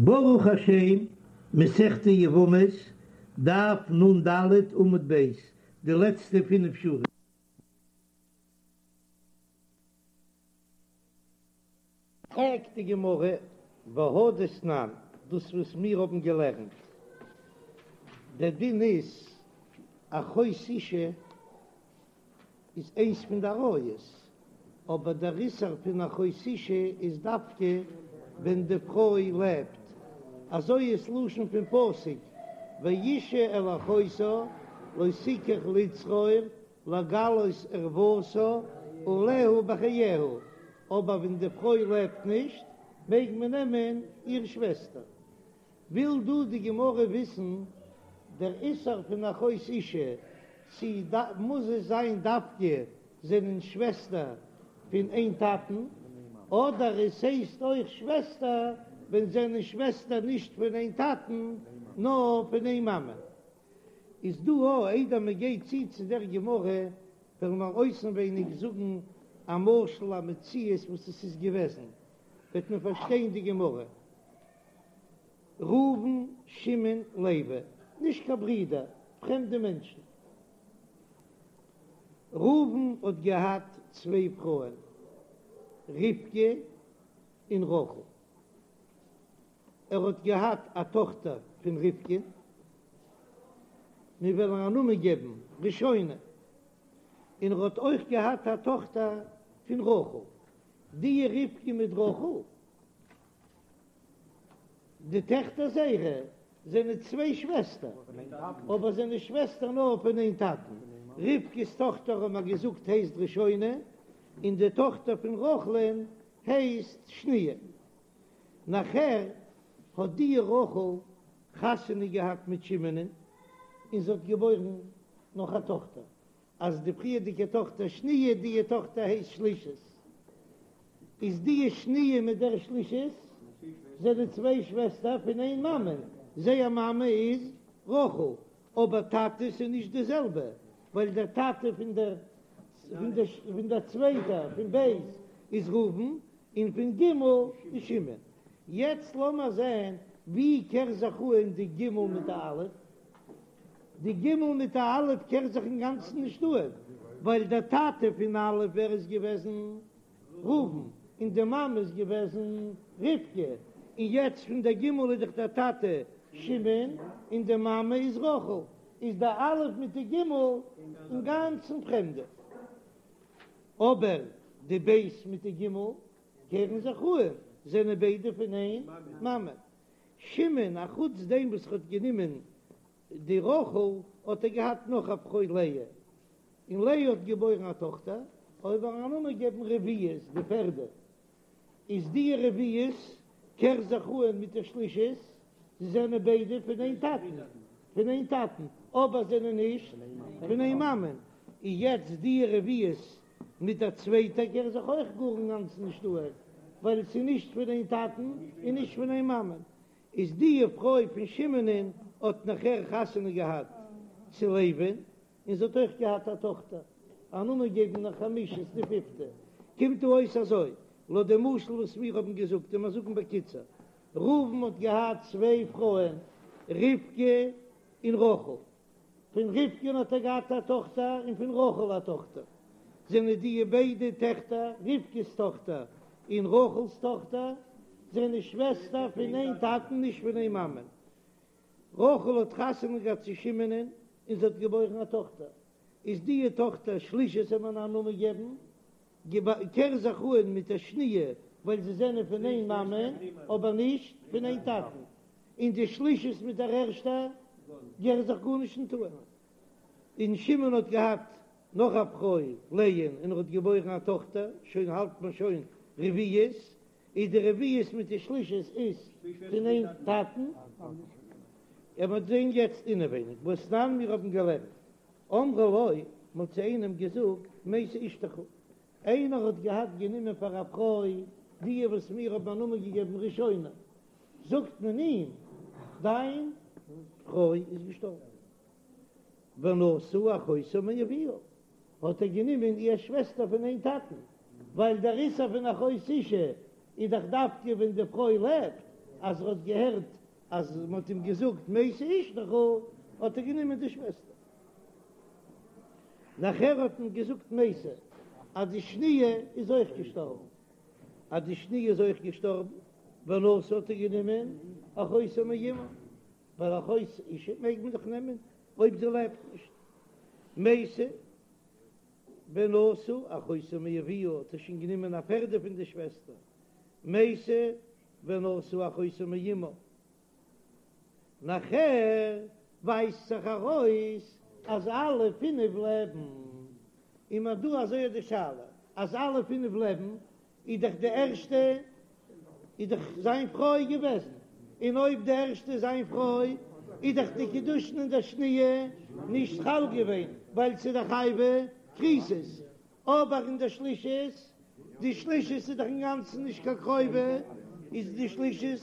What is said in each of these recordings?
ברוך השם, מסכת יבמות, דף נ ד עמוד ב', די לעצטע פינף שורות. פרעגט די גמרא, והא דתנן, דאס וואס מיר האבן געלערנט, דער דין איז, אחות אשה איז איינס פון די עריות, אבער דער איסור פון אחות אשה איז דווקא ווען די פרוי לעבט, אזוי איז לשון פון פסוק, ואשה אל אחותה לא תקח לצרור לגלות ערותה עליה בחייה, אבער ווען די פרוי לעבט נישט מעג מען נעמען איר שוועסטער. וויל דא די גמרא וויסן דער איסור פון אחות אשה, צי מוז עס זיין דווקא זענען שוועסטער פון איין טאטן, אדער עס הייסט אויך שוועסטער ווען זענען שוועסטער נישט פון איין טאטן נאר פון איין מאמע. איז דא א איידער מען גייט צו צו דער גמרא וועלן מיר אויסנווייניג זאגן א משל א מציאות וואס עס איז געוועזן וועט מען פארשטיין די גמרא. ראובן, שמעון, לוי, נישט קיין ברידער, פרעמדע מענטשן. ראובן האט געהאט צוויי פרויען, רבקה און רחל. ער האט געהאט א טאכטער פון רבקה, מיר וועלן א נאמען געבן ראשונה, און ער האט אויך געהאט א טאכטער פון רחל. די רבקה מיט רחל די טעכטער זייערע זענען צוויי שוועסטער, אבער זענען שוועסטער נאר פון איין טאטן. רבקה'ס טאכטער האבן מיר געזאגט הייסט ראשונה, און די טאכטער פון רחל'ן הייסט שניה. נאכער האט די רחל חתונה געהאט מיט שמעונ'ען, און זי האט געבוירן נאך א טאכטער. אז די פריערדיגע טאכטער שניה, די טאכטער הייסט שלישית, איז די שניה מיט דער שלישית זענען צוויי שוועסטער פון איין מאמע, זייער מאמע איז רחל, אבער טאטעס איז נישט די זעלבע, ווייל דער טאטע פון דער פון דער צווייטער פון ב' איז ראובן, און פון ג' איז שמעון. יעצט לאמער זען ווי קער זיך אהן די ג' מיט די א'. די ג' מיט די א' קער זיך אינגאנצן נישט אהן, ווייל דער טאטע פון א' ווער איז געוועזן? ראובן, און די מאמע איז געוועזן רבקה, און יעצט פון דער ג' איז דאך דער טאטע שמעון און די מאמע איז רחל, איז די א' מיט די ג' אינגאנצן פרעמדע. אבער די ב' מיט די ג' קערן זיך אהן, זענען ביידע פון איין מאמע. שמעון, א חוץ דעם וואס ער האט גענומען די רחל, האט ער געהאט נאך א פרוי לאה, און לאה האט געבוירן א טאכטער, אויב וועלן א נאמען געבן רביעית, די פערדע, איז די רביעית קער זיך אהן מיט די שלישית, זיי זענען ביידע פון איין טאטן, פון איין טאטן, אבער זענען נישט פון איין מאמען, און יעצט די רביעית מיט דער צווייטער קער זיך אויך גאר אינגאנצן נישט אהן, ווייל עס איז נישט פון איין טאטן און נישט פון איין מאמען. איז די פרוי פון שמעונ'ען האט נאכער חתונה געהאט צו לוי'ן, און זי האט אויך געהאט א טאכטער, א נאמען געבן נאך חמישית די פיפטע. קומט דא אויס אזוי, לויט די משל וואס מיר האבן געזאגט, און מיר זאגן בקיצור, ראובן האט געהאט צוויי פרויען, רבקה און רחל. פון רבקה'ן האט ער געהאט א טאכטער און פון רחל א טאכטער, זענען די ביידע טעכטער, רבקה'ס טאכטער און רחל'ס טאכטער, זענען שוועסטער פון איין טאטן נישט פון איין מאמען. רחל האט חתונה געהאט צו שמעונ'ען און זי האט געבוירן א טאכטער, איז די טאכטער שלישית זאל מען א נאמען געבן, קער זיך אהן מיט דער שניה ווייל זיי זענען פון איין מאמע אבער נישט פון איין טאטן, און די שלישית מיט דער ערשטער קער זיך גארנישט נישט אהן. און שמעון האט געהאט נאך א פרוי לאה'ן און ער האט געבוירן א טאכטער, שוין האלט מען שוין רביעית, איז די רביעית מיט די שלישית איז פון איין טאטן, ער וועט זען יעצט אינעווייניג והתנן מיר האבן געלערנט אמרו לו, מען האט צו איינעם געזאגט, מתה אשתך, איינער האט געהאט גענומען פאר א פרוי די וואס מיר האבן א נאמען געגעבן ראשונה, זאגט מען אים, דיין פרוי איז געשטארבן. ונשא אחותה מאביה, האט ער גענומען איר שוועסטער פון איין טאטן, ווייל דער איסור פון אחות אשה איז דאך דווקא ווען די פרוי לעבט. אז ער האט געהערט אז מען האט אים געזאגט מתה אשתך האט ער גענומען די שוועסטער. נאכער האט מען געזאגט מתה אז די שניה איז אויך געשטארבן, אז די שניה איז אויך געשטארבן, ונשא האט ער גענומען אחותו מאמה, ווייל אחות אשה מעג מען דאך נעמען אויב זי לעבט נישט, מתה ונשא אחותו מאביה האט ער שוין גענומען א פערדע פון די שוועסטער, מתה ונשא אחותו מאמה. נאכער ווייזט זיך ארויס אז אלע פינף לעבן, און מ'האט דא אזוי אט די שאלה, אז אלע פינף לעבן, איז דאך די ערשטע איז דאך זיין פרוי געוועזן, און אויב די ערשטע איז זיין פרוי, איז דאך די קידושין אין דער שניה נישט חל געווען, ווייל ס'איז דאך חייבי כריתות, אבער אין דער שלישית, די שלישית איז דאך אינגאנצן נישט קיין קרובה, איז די שלישית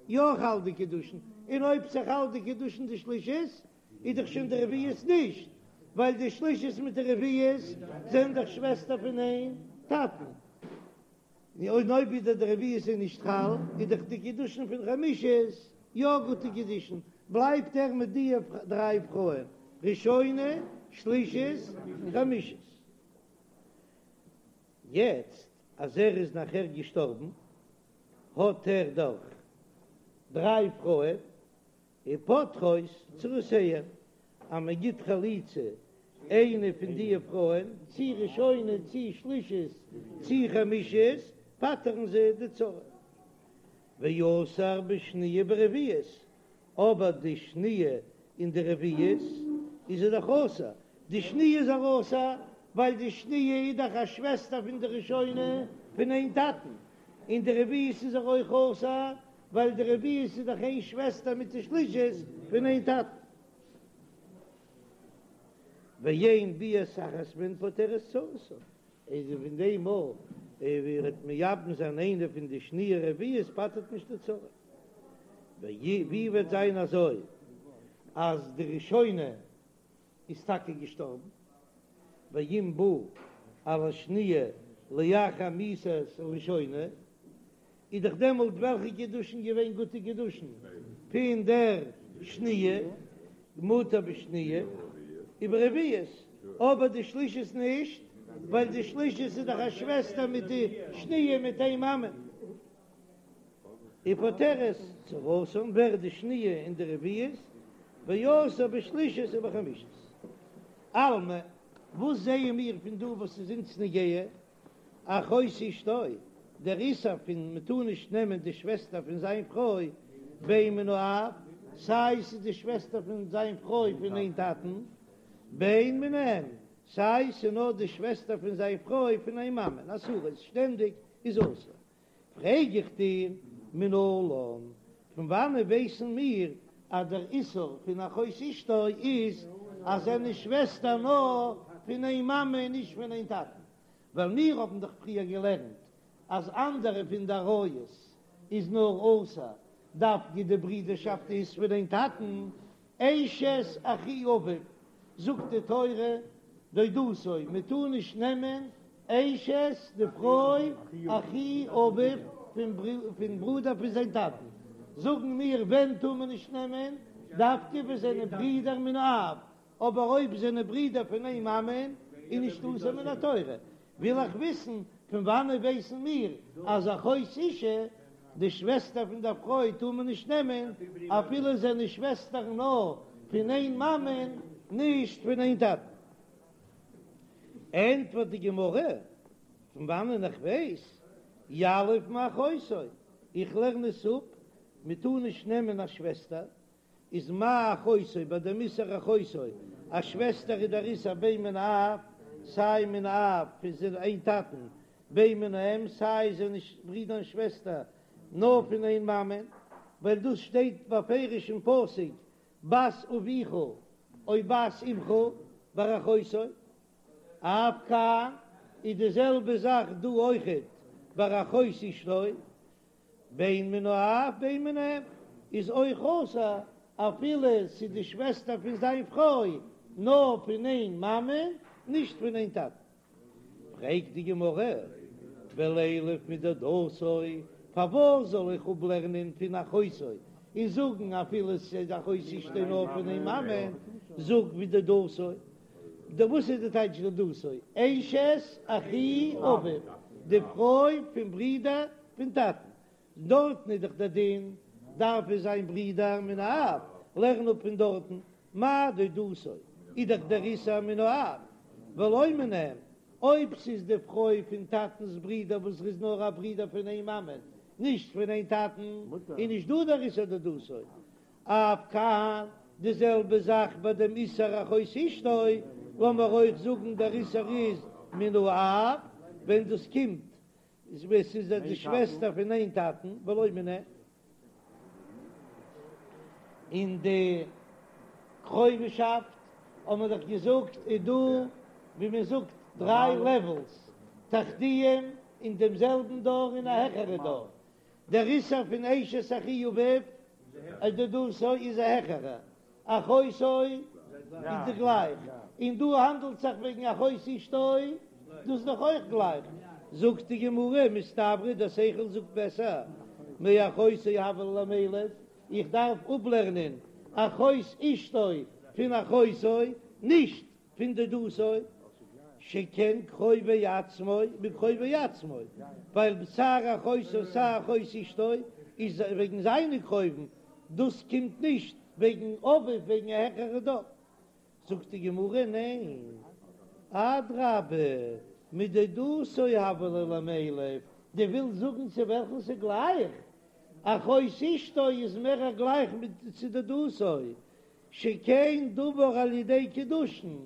יא חל די קידושין, און אויב ס'חל די קידושין די שלישית, איז דאך שוין די רביעית נישט, ווייל די שלישית מיט די רביעית זענען דאך שוועסטער פון איין טאטן. און אויב ווידער די רביעית איז נישט חל, איז דאך די קידושין פון חמישית יא גוטע קידושין, בלייבט ער מיט די דריי פרויען, ראשונה, שלישית, חמישית. יעצט אז ער איז נאכער געשטארבן, האט ער דאך דריי פרויען, ופוטרות צרותיהן, אז מען גיט חליצה איינע פון די פרויען, צי ראשונה צי שלישית צי חמישית, פטר'ן זיי די צרה. ואסור בשניה וברביעית, אבער די שניה און די רביעית איז ער דאך אסור, די שניה איז ער אסור ווייל די שניה איז דאך א שוועסטער פון די ראשונה פון איין טאטן, און די רביעית איז ער אויך אסור ווייל די רביעית איז דאך איין שוועסטער מיט די שלישית פון איין טאטן. ואין ביאת אחת מהן פוטרת צרתן, איז פון דעם מאל ווי ער וועט מייבם זיין איינע פון די שניה רביעית פטר'ט נישט די צרה. ווי וועט זיין אזוי אז די ראשונה איז טאקע געשטארבן, ואם בא על השניה לאחר מיתת הראשונה, איז דאך דעמאלט וועלכע קידושין געווען גוטע קידושין פון דער שניה, מותר בשניה וברביעית, אבער די שלישית נישט, ווייל די שלישית איז דאך א שוועסטער מיט די שניה מיט איין מאמע. ופוטרת צרתן ווערט די שניה און די רביעית, ואסור בשלישית ובחמישית. אלמא, וואס זעען מיר פון דא וואס איז אונז נוגע? אחות אשתו, דער איסור פון מען טאר נישט נעמען די שוועסטער פון זיין פרוי, בין מן האב, סיי ס'איז די שוועסטער פון זיין פרוי פון איין טאטן, בין מן האם, סיי ס'איז נאר די שוועסטער פון זיין פרוי פון איין מאמען, אסורות, שטענדיג איז אסור. פרעג איך דיר, מנלן, פון וואנען ווייסן מיר אז דער איסור פון אחות אשתו איז אז זענען שוועסטער נאר פון איין מאמע און נישט פון איין טאטן? ווייל מיר האבן דאך פריער געלערנט אז אנדערע פון די עריות איז נאר אסור דווקא די ברידערשאפט איז פון איין טאטן, אשת אחי אביו, זאגט די תורה, דודתו, מען טאר נישט נעמען אשת די פרוי אחי אביו פון ברודער פון זיין טאטן, זאגן מיר ווען טאר מען נישט נעמען, דווקא ווען זענען ברידער מן האב, אבער אויב זענען ברידער פון איין מאמען איז נישט אסור מן התורה, וויל איך וויסן פון וואנען ווייסן מיר אז אחות אשה, די שוועסטער פון דער פרוי טאר מען נישט נעמען אפילו זענען שוועסטער נאר פון איין מאמען נישט פון איין טאטן. ענטפערט די גמרא, פון וואנען איך ווייס, יליף מאחותו, איך לערן עס אפ, מען טאר נישט נעמען א שוועסטער, איז מה אחותו ביי דעם איסור אחותו, א שוועסטער איז דער איסור בין מן האב, סיי מן האב פון זיין איין טאטן, בין מן האם, סיי זענען ברידער און שוועסטער נאר פון איין מאמען, ווייל דאס שטייט בפירוש אין פסוק בת אביך או בת אמך ביי אחותו, אף כאן איז די זעלבע זאך דא אויכעט ביי אחות אשתו, בין מן האב בין מן האם איז אויך אסור אפילו ס'איז די שוועסטער פון זיין פרוי נאר פון איין מאמע נישט פון איין טאטן. פרעגט די גמרא, ולילף מדודתו, פארוואס זאל איך אפלערנען פון אחותו און זאגן אפילו ס'איז אחות אשתו נאר פון איין מאמע, זאג מדודתו. די וואס איז די טייטש דודתו? אשת אחי אביו, די פרוי פון ברודער פון טאטן. דארטן איז דאך דער דין דארף עס זיין ברידער מן האב, לערן אפ פון דארטן, מה דודתו איז דאך דער איסור מן האב ולא מן האם, אויב ס'איז די פרוי פון טאטנ'ס ברידער וואס איז נאר א ברידער פון איין מאמען נישט פון איין טאטן, איז נישט דא דער איסור דודתו. אף כאן, די זעלבע זאך ביי דעם איסור אחות אשתו, לאמיר אויך זאגן דער איסור איז מן האב, ווען דאס קומט ווען ס'איז די שוועסטער פון איין טאטן, ולא מן האם. אין די קרובישאפט האט מען דאך געזאגט איז דא ווי מען זאגט דריי לעוועלס, תחתיים אין דעם זעלבן דור און א העכערע דור, דער איסור פון אשת אחי אביו דודתו איז א העכערע, אחותו איז די גלייך, און דא האנדלט זיך וועגן אחות אשתו, דאס איז דאך אויך גלייך, זאגט די גמרא, מסתברא דער שכל זאגט בעסער, מאחותו הוה ליה למילף, איך דארף אפלערנען אחות אשתו פון אחותו, נישט פון דודתו, שכן קרובי עצמו מקרובי עצמו, ווייל סיי אחותו סיי אחות אשתו איז וועגן זיינע קרובים, דאס קומט נישט וועגן אביו וועגן א העכערע דור. זאגט די גמרא ניין, אדרבה מדודתו הוה ליה למילף, דו ווילסט זאגן צו וועלכן ס'גלייך, אחות אשתו איז מער גלייך מיט צו דודתו, שכן דבר על ידי קידושין,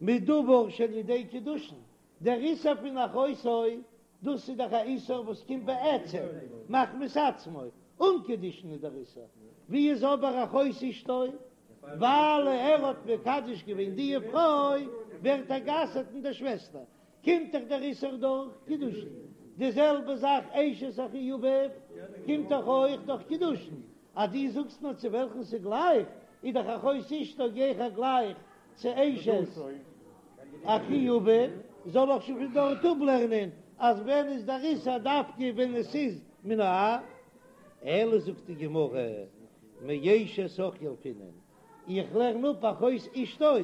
מדבר שעל ידי קידושין, דער איסור פון אחותו, דאס איז דאך א איסור וואס קומט בעצם מחמת עצמו, אן קידושין איז דער איסור, ווי איז אבער אחות אשתו, ווייל ער האט מקדש געווען די פרוי ווערט ער גע'אסר'ט אין דער שוועסטער, קומט דאך דער איסור דורך קידושין, די זעלבע זאך אשת אחי אביו קומט דאך אויך דורך קידושין, אז דו זאגסט נאר צו וועלכן ס'גלייך, איז דאך אחות אשתו גיכער גלייך צו אשת אחי אביו, זאל איך שוין פון דארט אפלערנען אז ווען איז דער איסור דווקא ווען עס איז מן האב? אלא זאגט די גמרא, מאשת אח ילפינן, איך לערן אפ אחות אשתו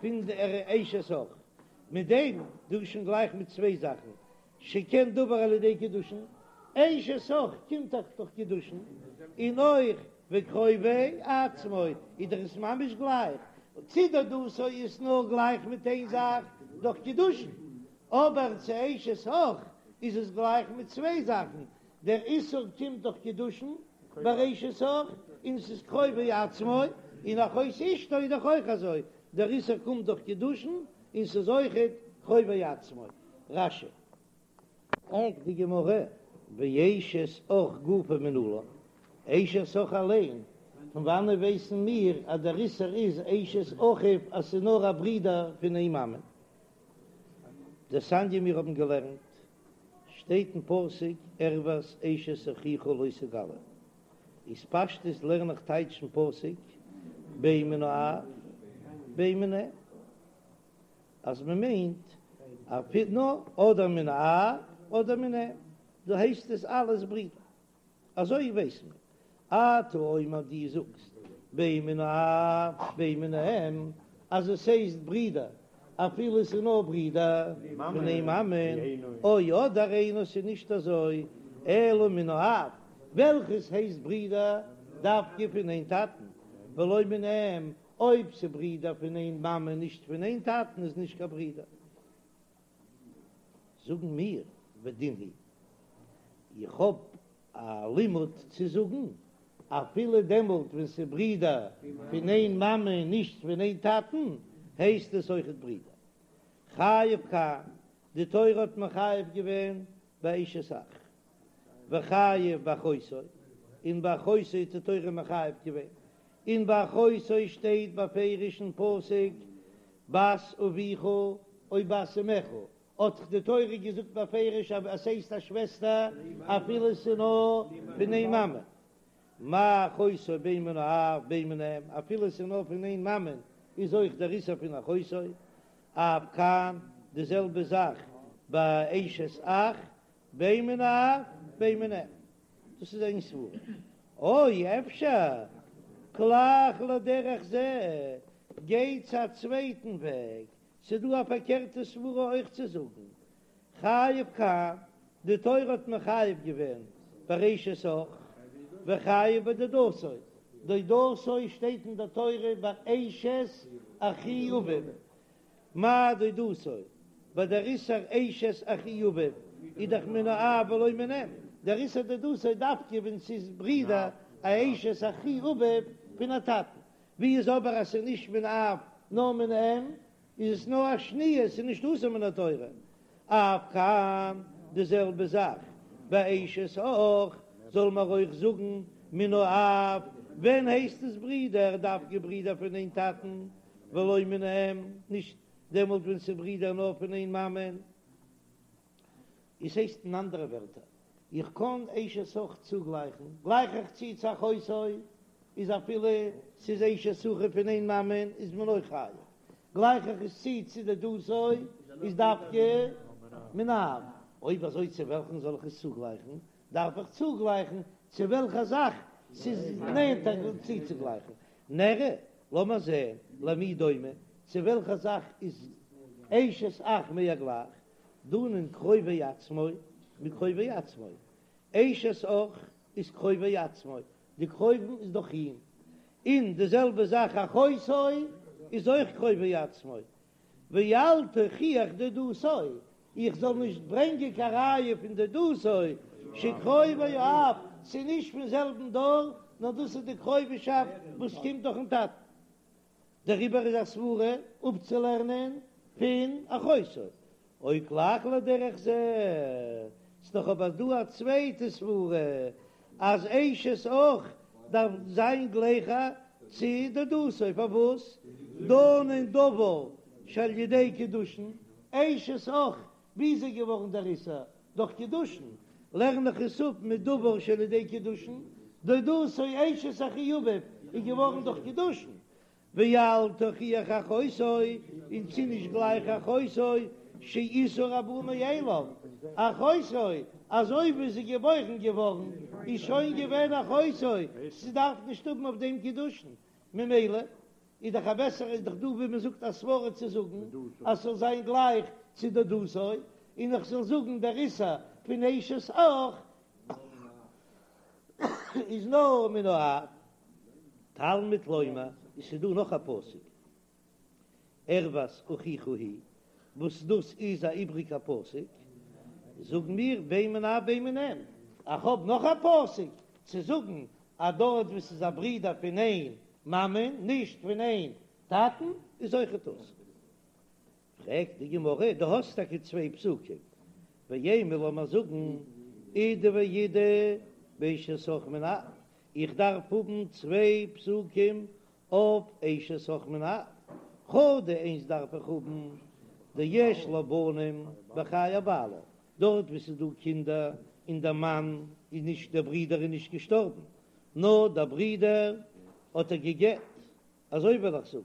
פון דער אשת אח, מיט דעם דא שוין גלייך מיט צוויי זאכן, שכן דבר על ידי קידושין, אשת אח קומט דאך דורך קידושין, און אויך וקרובי עצמו איז דאך עס ממש גלייך, צו דודתו איז נאר גלייך מיט איין זאך דורך קידושין, אבער צו אשת אח איז עס גלייך מיט צוויי זאכן, דער איסור קומט דורך קידושין ביי אשת אח, און ס'איז קרובי עצמו, און אחות אשתו איז דאך אויך אזוי, דער איסור קומט דורך קידושין, און ס'איז אויכעט קרובי עצמו. רש"י. פרעגט די גמרא, ואשת אח גופא מנלן, אשת אח אליין, פון וואנען ווייסן מיר אז דער איסור איז אשת אחיו אז ס'איז נאר א ברודער פון איין מאמע? דתניא מיר האבן געלערנט, שטייט אין פסוק ערות אשת אחיך לא תגלה, איז פשטות לערן איך טייטש אין פסוק בין מן האב בין מן האם. אז מען מיינט אפילו אדער מן האב אדער מן האם, דא הייסט עס אלעס ברידער, אזוי ווייס מען, אתה אומר דו זאגסט בין מן האב בין מן האם, אז עס הייסט ברידער אפילו עס איז נאר ברידער פון איין מאמען, או אדער אינו ס'איז נישט אזוי אלא מן האב, וועלכעס הייסט ברידער דווקא פון איין טאטן, ולא מן האם, אויב ס'ברידער פון איין מאמע נישט פון איין טאטן איז נישט קיין ברידער. זאגן מיר ודין הוא, איך האב א לימוד צו זאגן, אפילו דעמאלט ווען ס'ברידער פון איין מאמע און נישט פון איין טאטן, הייסט עס אויכעט ברידער. חייב כאן, די תורה האט מחייב געווען ביי אשת אח. וחייב באחותו, און ביי אחותו האט די תורה מחייב געווען, און ביי אחותו שטייט בפירוש אין פסוק בת אביך או בת אמך, האט דאך די תורה געזאגט בפירוש אז עס הייסט א שוועסטער אפילו עס איז נאר פון איין מאמע, מה אחותו בין מן האב בין מן האם, אפילו עס איז נאר פון איין מאמע איז אויך דער איסור פון אחותו, אף כאן די זעלבע זאך ביי אשת אח בין מן האב בין מן האם. דאס איז איין סברא. או אפשר כלך לדרך זה, גיי צו א צווייטן וועג, ס'דא א פארקערטע סברא אויך צו זאגן, חייב כאן, די תורה האט מחייב געווען באשת אח, וחייב בדודתו, דודתו שטייט אין די תורה ביי אשת אחי אביו, מאי דודתו, ביי דער איסור אשת אחי אביו איז דאך מן האב ולא מן האם, דער איסור דודתו דווקא ווען ס'איז ברידער א אשת אחי אביו פון א טאטן, ווי איז אבער אז ס'איז נישט מן האב נאר מן האם, איז עס נאר א שניה, ס'איז נישט אסור מן התורה. אף כאן די זעלבע זאך ביי אשת אח, זאל מען אויך זאגן מן האב, ווען הייסט עס ברידער, דווקא ברידער פון איין טאטן, ולא מן האם, נישט דעמאלט ווען ס'איז ברידער נאר פון איין מאמען. עס הייסט אין אנדערע ווערטער, איך קען אשת אח צוגלייכן, גלייך איך צו צו אחותו, איז אפילו ס'איז אשת אחיו פון איין מאמען איז מען אויך חייב, גלייך איך עס צו צו דודתו איז דווקא מן האב, אויב אזוי צו וועלכן זאל איך עס צוגלייכן? דארף איך צוגלייכן צו וועלכע זאך ס'איז נענטער צוצוגלייכן, נראה, לאמיר זען, למי דומה, צו וועלכע זאך איז אשת אח מער גלייך, דנין קרובי עצמו מקרובי עצמו, אשת אח איז קרובי עצמו, די קרובים איז דאך אים, און די זעלבע זאך אחותו איז אויך קרובי עצמו, ואל תוכיח דודתו, איך זאל נישט ברענגען קיין ראיה פון דודתו שקרובי האב, ס'איז נישט פון זעלבן דור, נאר דאס איז די קרובישאפט וואס קומט דורכן טאטן. דעריבער איז א סברה אפצולערנען פון אחותו, או כלך לדרך זה, ס'דאך אבער דא א צווייטע סברה אז אשת אח דארף זיין גלייכער צו דודתו, פארוואס דנין דבר שעל ידי קידושין, אשת אח ווי איז ער געווארן דער איסור? דורך קידושין, לערן איך עס אפ מדבר שעל ידי קידושין, דודתו אשת אחי אביו איז געווארן דורך קידושין, ואל תוכיח אחותו, און ס'איז נישט גלייך אחותו שאיסור הבא מאליו, אחותו אזוי ווי זי איז געבוירן געווארן איז שוין געווען אחותו, ס'דארף נישט האבן אויף דעם קידושין, ממילא איז דאך א בעסערע איז דאך דא ווי מען זאגט א סברא צו זאגן אז ס'זאל זיין גלייך צו דודתו, און איך זאל זאגן דער איסור פון אשת אח איז נאר מן האב. תלמוד לומר, עס איז דא נאך א פסוק ערות אחיך היא, וואס דאס איז א איבריגע פסוק, זאגן מיר בין מן האב בין מן האם, איך האב נאך א פסוק צו זאגן אז דארט וואו ס'איז א ברודער פון איין מאמען נישט פון איין טאטן איז אויכעט אסור. פרעגט די גמרא, דו האסט טאקע צוויי פסוקים, ואימא לאמיר זאגן אידי ואידי באשת אח מן האב, איך דארף האבן צוויי פסוקים אויף אשת אח מן האב, חדא איינס דארף איך האבן דיש לה בנים בחיי בעלה, דארט וואו ס'איז דא קינדער און דער מאן איז נישט דער ברודער איז נישט געשטארבן נאר דער ברודער האט איר גע'גט, אזוי וועל איך זאגן.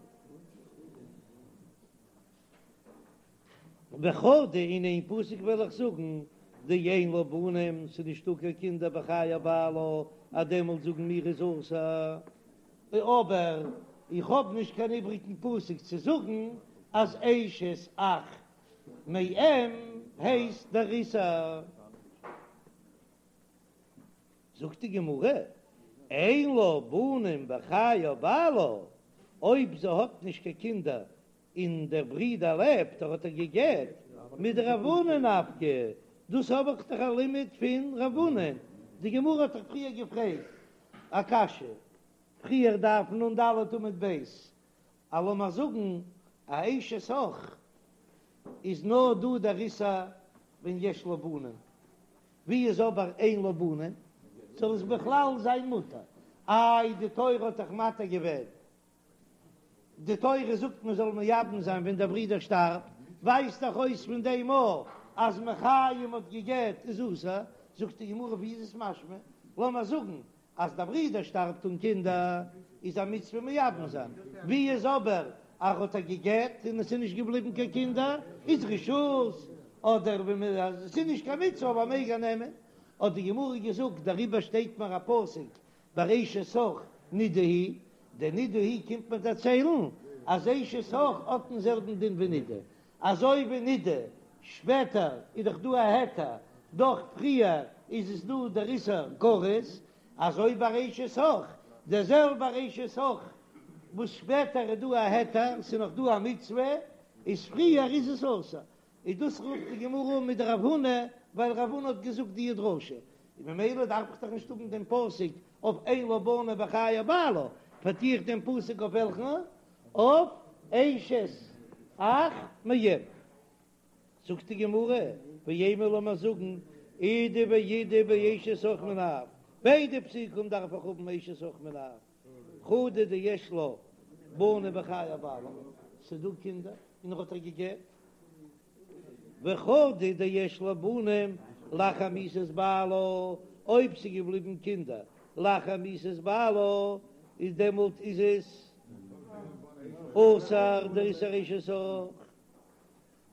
וחדא אין איין פסוק וועל איך זאגן דאין לה בנים ס'איז נישטא קיין קינדער בחיי בעלה אז דעמאלט זאגן מיר איז אסור, אבער איך האב נישט קיין איבריגן פסוק צו זאגן אז אשת אח מאם הייסט דער איסור. זאגט די גמרא, אין לה בנים בחיי בעלה, אויב זי האט נישט קיין קינדער און דער ברודער לעבט, ער האט איר גע'גט, מדרב הונא נפקא, דאס האב איך דאך א לימוד פון רב הונא, די גמרא האט דאך פריער געפרעגט א קשיא, פריער דף נ"ד עמוד ב', אז לאמיר זאגן א אשת אח איז נאר דא דער איסור ווען יש לה בנים, ווי איז אבער אין לה בנים זאל עס בכלל זיין מותר? איי די תורה האט דאך מתיר געווען, די תורה זאגט מען זאל מייבם זיין ווען דער ברודער שטארבט, ווייזט דאך אויס פון דעם אויך אז מחיים האט גע'גט איז אסור, זאגט די גמרא ווי איז עס משמע? לאמיר זאגן אז דער ברודער שטארבט אן קינדער איז א מצוה מייבם זיין, ווי איז אבער אז ער האט איר גע'גט און עס איז נישט געבליבן קיין קינדער איז רשות, אדער ווען מען אז עס איז נישט קיין מצוה אבער מעג ער נעמען. האט די גמרא געזאגט דעריבער שטייט מיר א פסוק ביי אשת אח נידה היא, די נידה היא קומט מיר דערציילן אז אשת אח האט דעם זעלבן דין ווי נידה, אזוי ווי נידה שפעטער איז דאך דא א היתר, דאך פריער איז עס דא דער איסור כרת, אזוי ביי אשת אח, דער זעלבער אשת אח וואס שפעטער איז דא א היתר, ס'איז נאך דא א מצוה, איז פריער איז עס אסור, איז דאס רופט די גמרא אן מדרב הונא, ווייל רב הונא האט געזאגט די דרשה, און ממילא דארף איך דאך נישט האבן דעם פסוק אויף אין לה בנים בחיי בעלה, פארטו איך דעם פסוק אויף וועלכן? אויף אשת אח מאם. זאגט די גמרא, ואימא לאמיר זאגן, אידי ואידי באשת אח מן האב, ביידע פסוקים דארף איך האבן אשת אח מן האב, חדא דיש לה בנים בחיי בעלה, ס'איז דא קינדער און ער האט איר גע'גט, וחדא דיש לה בנים לאחר מיתת בעלה, אויב ס'איז געבליבן קינדער לאחר מיתת בעלה, איז דעמאלט איז עס אסור דער איסור אשת אח.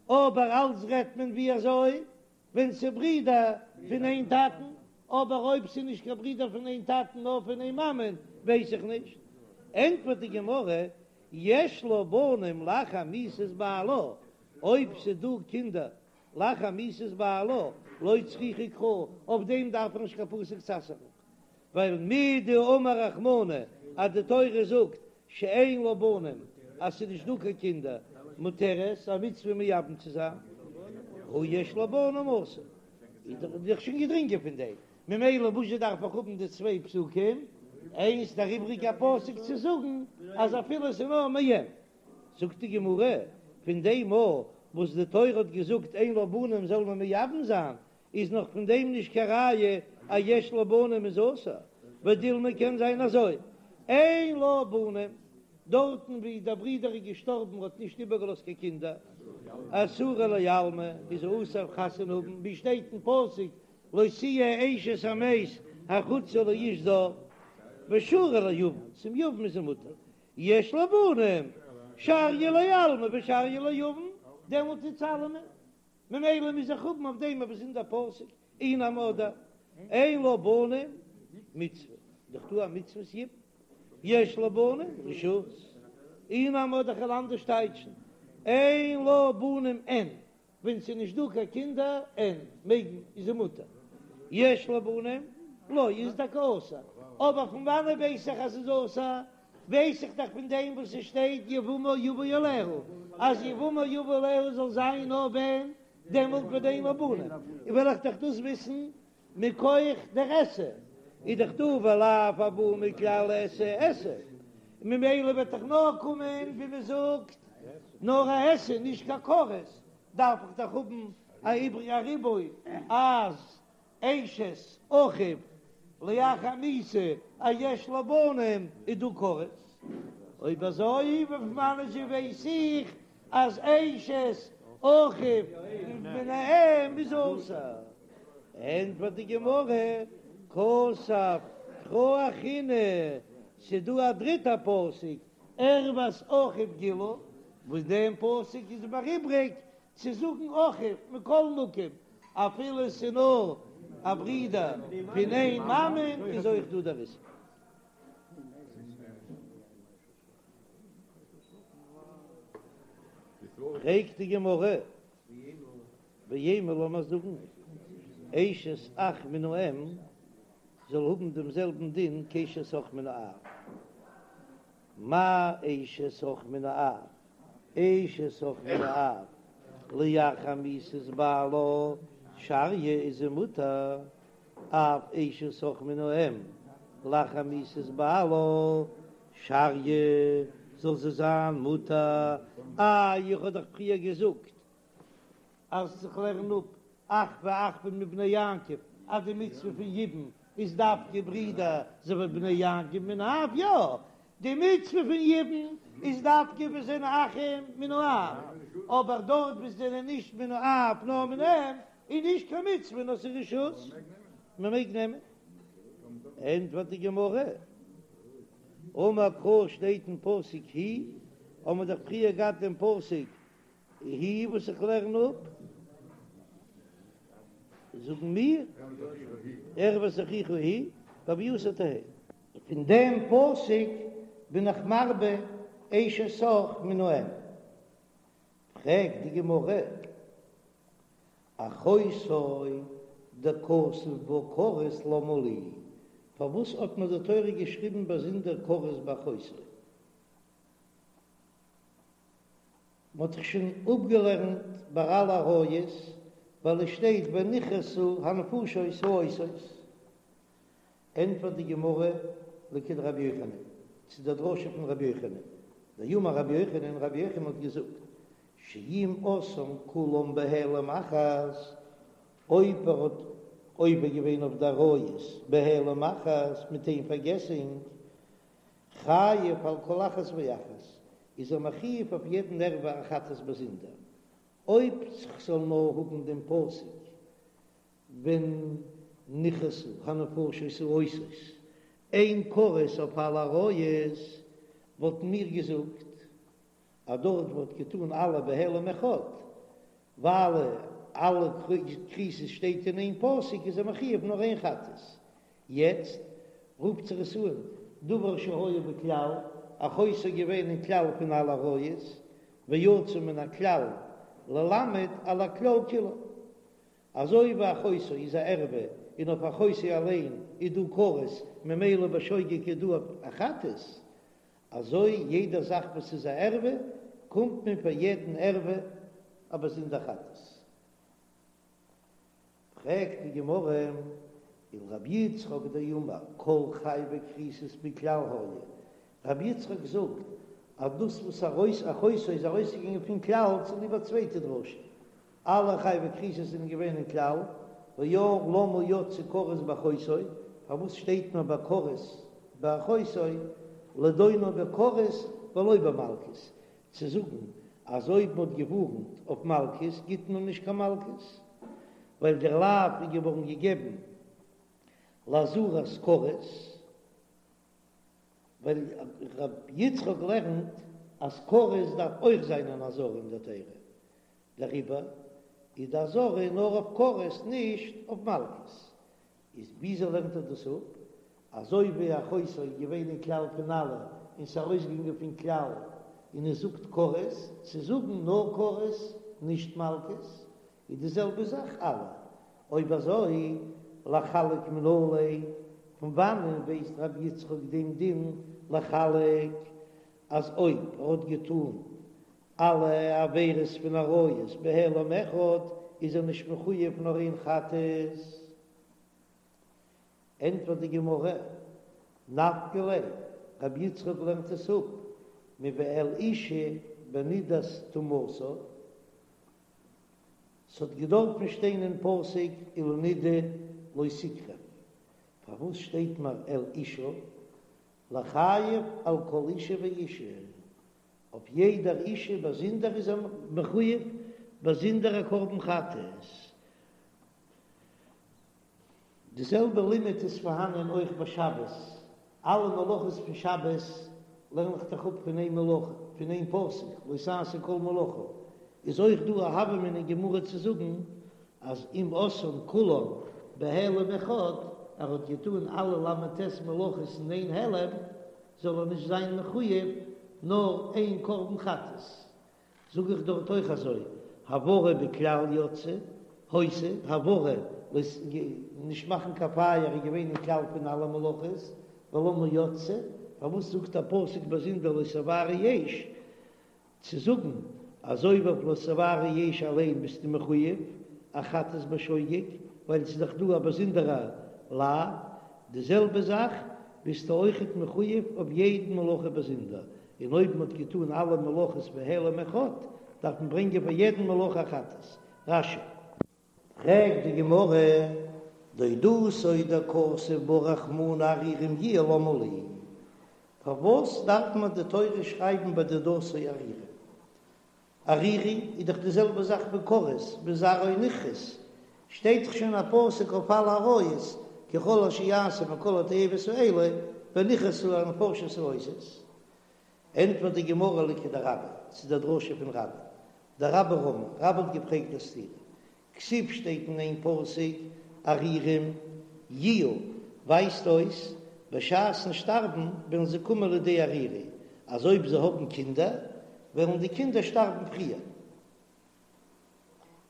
אבער אלץ רעדט מען ווי אזוי ווען ס'ברידער פון איין טאטן, אבער אויב ס'איז נישט קיין ברידער פון איין טאטן נאר פון איין מאמען ווייס איך נישט. ענטפערט די גמרא, יש לה בנים לאחר מיתת בעלה, אויב ס'איז דא קינדער לאחר מיתת בעלה, לא צריכא קרא, אויף דעם דארף איך נישט קיין פסוק צו אסר'ן, ווייל מדאמר רחמנא אז די תורה זאגט שאין לה בנים אז ס'איז נישט דא קיין קינדער מותרת, א מצוה מייבם צו זיין, הא יש לה בנים אסור, איז דאך שוין געדרינגען פון דעם, ממילא וואזשע דארף איך האבן די צוויי פסוקים, איינס דער איבריגע פסוק צו זאגן אז אפילו ס'איז נאר מאם. זאגט די גמרא, פון דעם מאל וואס די תורה האט געזאגט אין לה בנים זאל מען מייבם זיין, איז נאך פון דעם נישט קיין ראיה אז יש לה בנים איז אסור, ודילמא קען זיין אזוי, אין לה בנים, דארטן ווי דער ברודער איז געשטארבן האט נישט איבערגעלאזט קיין קינדער, אסורה לעלמא איז אסור חתונה האבן, ווי שטייט אין פסוק לא תהיה אשת המת החוצה לאיש זר, ושרי ליבם, צום יבם איז זי מותר, יש לה בנים, שריא לעלמא ושריא ליבם, דעמאלט איז אלעמען. ממילא מוז איך האבן אויף דעם א באזונדער פסוק, אי נמי אדער אין לה בנים מצוה, דאך דא א מצוות יבום, יש לה בנים רשות, אי נמי אדער כ'וועל אנדערש טייטשן, אין לה בנים אין, ווען ס'איז נישט דא קיין קינדער אין, מעג מען, איז זי מותר, יש לה בנים לא, איז טאקע אסור, אבער פון וואנעט ווייס איך אז ס'איז אסור? ווייס איך דאך פון דעם וואס עס שטייט יבמה יבא עליה, אז יבמה יבא עליה זאל זיין נאר ווען דעמאלט ווען אין לה בנים, און וועל איך דאך דאס וויסן מכח דער עשה, איז דאך דא ולאו הבא מכלל עשה עשה, ממילא וועט דאך נאר קומען ווי מען זאגט נאר א עשה נישט קיין כרת, דארף איך דאך האבן א איבריגע ריבוי אז אשת אחיו לאחר מיתה אז יש לה בנים איז דא כרת. אויב אזוי פון וואנען זשע ווייס איך אז אשת אחיו מן האם איז אסור? ענטפערט די גמרא, כתב קרא אחרינא, ס'דא א דריטע פסוק ערות אחיו גילו, וואס דעם פסוק איז מיר איבריג צו זאגן אחיו מכל מקום, אפילו ס'איז נאר א ברודער פון איין מאמען איז אויך דא דער איסור. פרעגט די גמרא, ואימא לאמיר זאגן אשת אח מן האם זאל האבן דעם זעלבן דין כאשת אח מן האב, מה אשת אח מן האב, אשת אח מן האב, לאחר מיתת בעלה שריא איז זי מותר, אף אשת אח מן האם, לאחר מיתת בעלה שריא זאל זי זיין מותר, איי איך האב דאך פריער געזאגט אז איך לערן אפ אחוה אחוה מבני יעקב אז די מצוה פון יבום איז דווקא ברידער אזוי ווי בני יעקב מן האב, יא, די מצוה פון יבום איז דווקא ווען זענען אחים מן האב, אבער דארט וואו זענען נישט מן האב נאר מן האם איז נישט קיין מצוה נאר ס'איז רשות, מען מעג נעמען. ענטפערט די גמרא, אמר קרא שטייט אין פסוק היא, האמער דאך פריער געהאט דעם פסוק היא וואס איך לערן אפ, זאגן מיר. ערות אחיך היא בהוייתה תהא. פון דעם פסוק בין איך מרבה אשת אח מן האם. פרעגט די גמרא, אחותו דכתב בה כרת למה לי, פארוואס האט מיר די תורה געשריבן באזונדער כרת ביי אחותו? מ'האט דאך שוין אפגעלערנט ביי אלע עריות, ווייל עס שטייט ונכרתו הנפשות העושות. ענטפערט די גמרא לכדרבי יוחנן, צו דער דרשה פון רבי יוחנן, דאמר רבי יוחנן, רבי יוחנן האט געזאגט, שאם עשאן כולם בהעלם אחת, אויב ער האט עובר געווען אויף די עריות בהעלם אחת מיט איין פארגעסונג, חייב על כל אחת ואחת, איז ער מחויב אויף יעדן ערווה א חטאת באזונדער, אויב כ'זאל נאר האבן דעם פסוק ונכרתו הנפשות העושות, איין כרת אויף אלע עריות, וואלטן מיר געזאגט אז דארט וואו מ'האט געטאן אלע בהעלם אחד, ווייל אלע כריתות שטייט אין איין פסוק איז ער מחויב נאר איין חטאת. יעצט רופט זיך עס אן דבר שהיה בכלל, אחותו איז געווען אין כלל פון אלע עריות, ויצא מן הכלל ללמד על הכלל כולו. אזוי ווי אחותו איז א ערווה און אויף אחותו אליין איז דא כרת ממילא בשוגג איז דא א חטאת, אזוי יעדע זאך וואס איז א ערווה קומט מען פאר יעדן ערווה א באזונדער חטאת. פרעגט די גמרא, ולרבי יצחק דאמר כל חייבי כריתות בכלל היו, רבי יצחק זאגט אז דאס וואס ארויס אחותו איז ארויסגעגאנגען פון כלל צוליב א צווייטע דרשה, אלע חייבי כריתות זענען געווען אין כלל, והיה למה יצא כרת באחותו, פארוואס שטייט נאר ביי כרת באחותו, לדונו בכרת ולא במלקות, צו זאגן אז אויב מ'האט געווארנט אויף מלקות גיט מען נישט קיין מלקות, ווייל דער לאו איז געווארן געגעבן לאזהרת כרת, ווייל ר' יצחק לערנט אז כרת דארף אויך זיין אן אזהרה אין דער תורה, דעריבער איז די אזהרה נאר אויף כרת נישט אויף מלקות. איז וויאזוי לערנט ער דאס אפ? אזוי ווי אחותו איז געווען אין כלל פון אלע און ס'איז ארויסגעגאנגען פון כלל און עס זאגט כרת, צו זאגן נאר כרת נישט מלקות איז די זעלבע זאך אלע. אויב אזוי לחלק מנא ליה, פון וואנען ווייסט רבי יצחק דעם דין לחלק אז אויב ער האט געטאן אלע עבירות פון עריות בהעלם אחד איז ער נישט מחויב נאר איין חטאת. ענטפערט די גמרא, נפקא ליה, רבי יצחק לערנט עס אפ מואל אשה בנדת טומאתה, ס'האט געדארפן שטיין אין פסוק ולנדה לא תקרב, פארוואס שטייט מיר אל אשה? לחייב על כל אשה ואשה, אויף יעדער אישה באזונדער איז ער מחויב באזונדער א קרבן חטאת. די זעלבע לימוד איז פארהאנען אויך ביי שבת, אלע מלאכות פון שבת לערן איך דאך אפ פון איין מלאכה, פון איין פסוק, לא תעשו כל מלאכה, איז אויך דא א הוה אמינא אין גמרא צו זאגן אז אם עשאן כולן בהעלם אחד, ער האט געטאן אלע ל"ט מלאכות אין איין העלם, זאל ער נישט זיין מחויב נאר איין קרבן חטאת, זאג איך דארט אויך אזוי, הבערה בכלל יצאה, היתה, הבערה, נישט מאכן קיין פייער איז געווען אין כלל פון אלע מלאכות, ולמה יצאה, פארוואס זאגט א פסוק באזונדער לא תבערו אש, צו זאגן אז אויב אויף לא תבערו אש אליין ביסטו מחויב א חטאת בשוגג, ווייל ס'איז דאך דא א באזונדערע לאו, די זעלבע זאך ביסטו אויכעט מחויב אויף יעדן מלאכה באזונדער, און אויב מ'האט געטאן אלע מלאכות בהעלם אחד, דארף מען ברענגען פאר יעדן מלאכה א חטאת. רש"י. פרעגט די גמרא, דודתו דכתב בה רחמנא ערירים יהיו למה לי, פארוואס דארף מען די תורה שרייבן ביי דודתו ערירים? ערירי איז דאך די זעלבע זאך ווי כרת, וזרעו נכרת, שטייט דאך שוין א פסוק אויף אלע עריות, כי כל אשר יעשה מכל התועבות האלה, ונכרתו הנפשות העושות. ענטפערט די גמרא לכדרבה, צו דער דרשה פון רבה, דרבה רמי, רבה האט געפרעגט א סתירה, כתיב שטייט אין איין פסוק ערירים. יהיו, ווייזט אויס בשעת'ן שטארבן וועלן זיי קומען לידי ערירי, אז אויב זיי האבן קינדער וועלן די קינדער שטארבן פריער.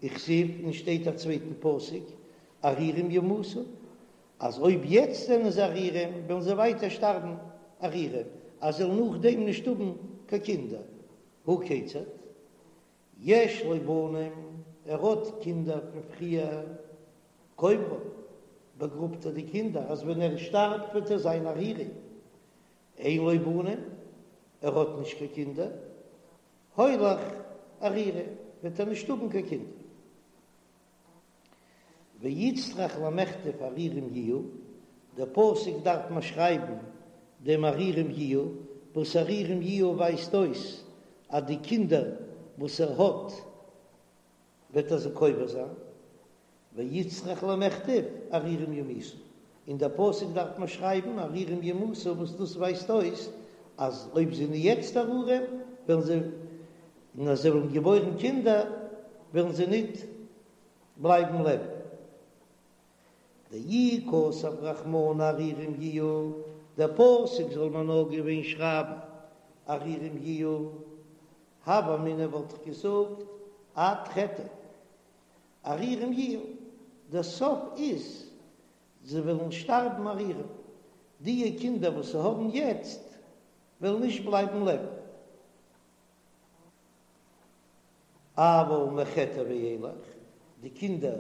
וכתיב, און שטייט א צווייטן פסוק, ערירים ימותו, אז אויב יעצט זענען זיי ערירים וועלן זיי ווייטער שטארבן ערירים, אז זיי וועלן נאכדעם נישט האבן קיין קינדער. הא כיצד? יש לו בנים, ער האט קינדער פון פריער, קוברן, באגראבט ער די קינדער אז ווען ער שטארבט וועט ער זיין ערירי. אין לו בנים, ער האט נישט קיין קינדער, הולך ערירי, וועט ער נישט האבן קיין קינדער. ואיצטריך למיכתב ערירים יהיו, דער פסוק דארף מען שרייבן דעם ערירים יהיו, וואס ערירים יהיו ווייזט אויס אז די קינדער וואס ער האט וועט ער זיי קובר זיין, ואיצטריך למיכתב ערירים ימותו, אין דער פסוק דארף מען שרייבן ערירים ימותו וואס דאס ווייזט אויס אז אויב זיי זענען יעצט ערירים וועלן זיי, און אז זיי וועלן געבוירן קינדער וועלן זיי ניט בלייבן לעבן. דאי כתב רחמנא ערירים יהיו, דער פסוק זאל מען נאר געווען שרייבן ערירים יהיו, הוה אמינא וואלט איך געזאגט עד חטא ערירים יהיו, דער סוף איז זיי וועלן שטארבן ערירים, דיע קינדער וואס זיי האבן יעצט וועלן נישט בלייבן לעבן. אבל מחטא ואילך, די קינדער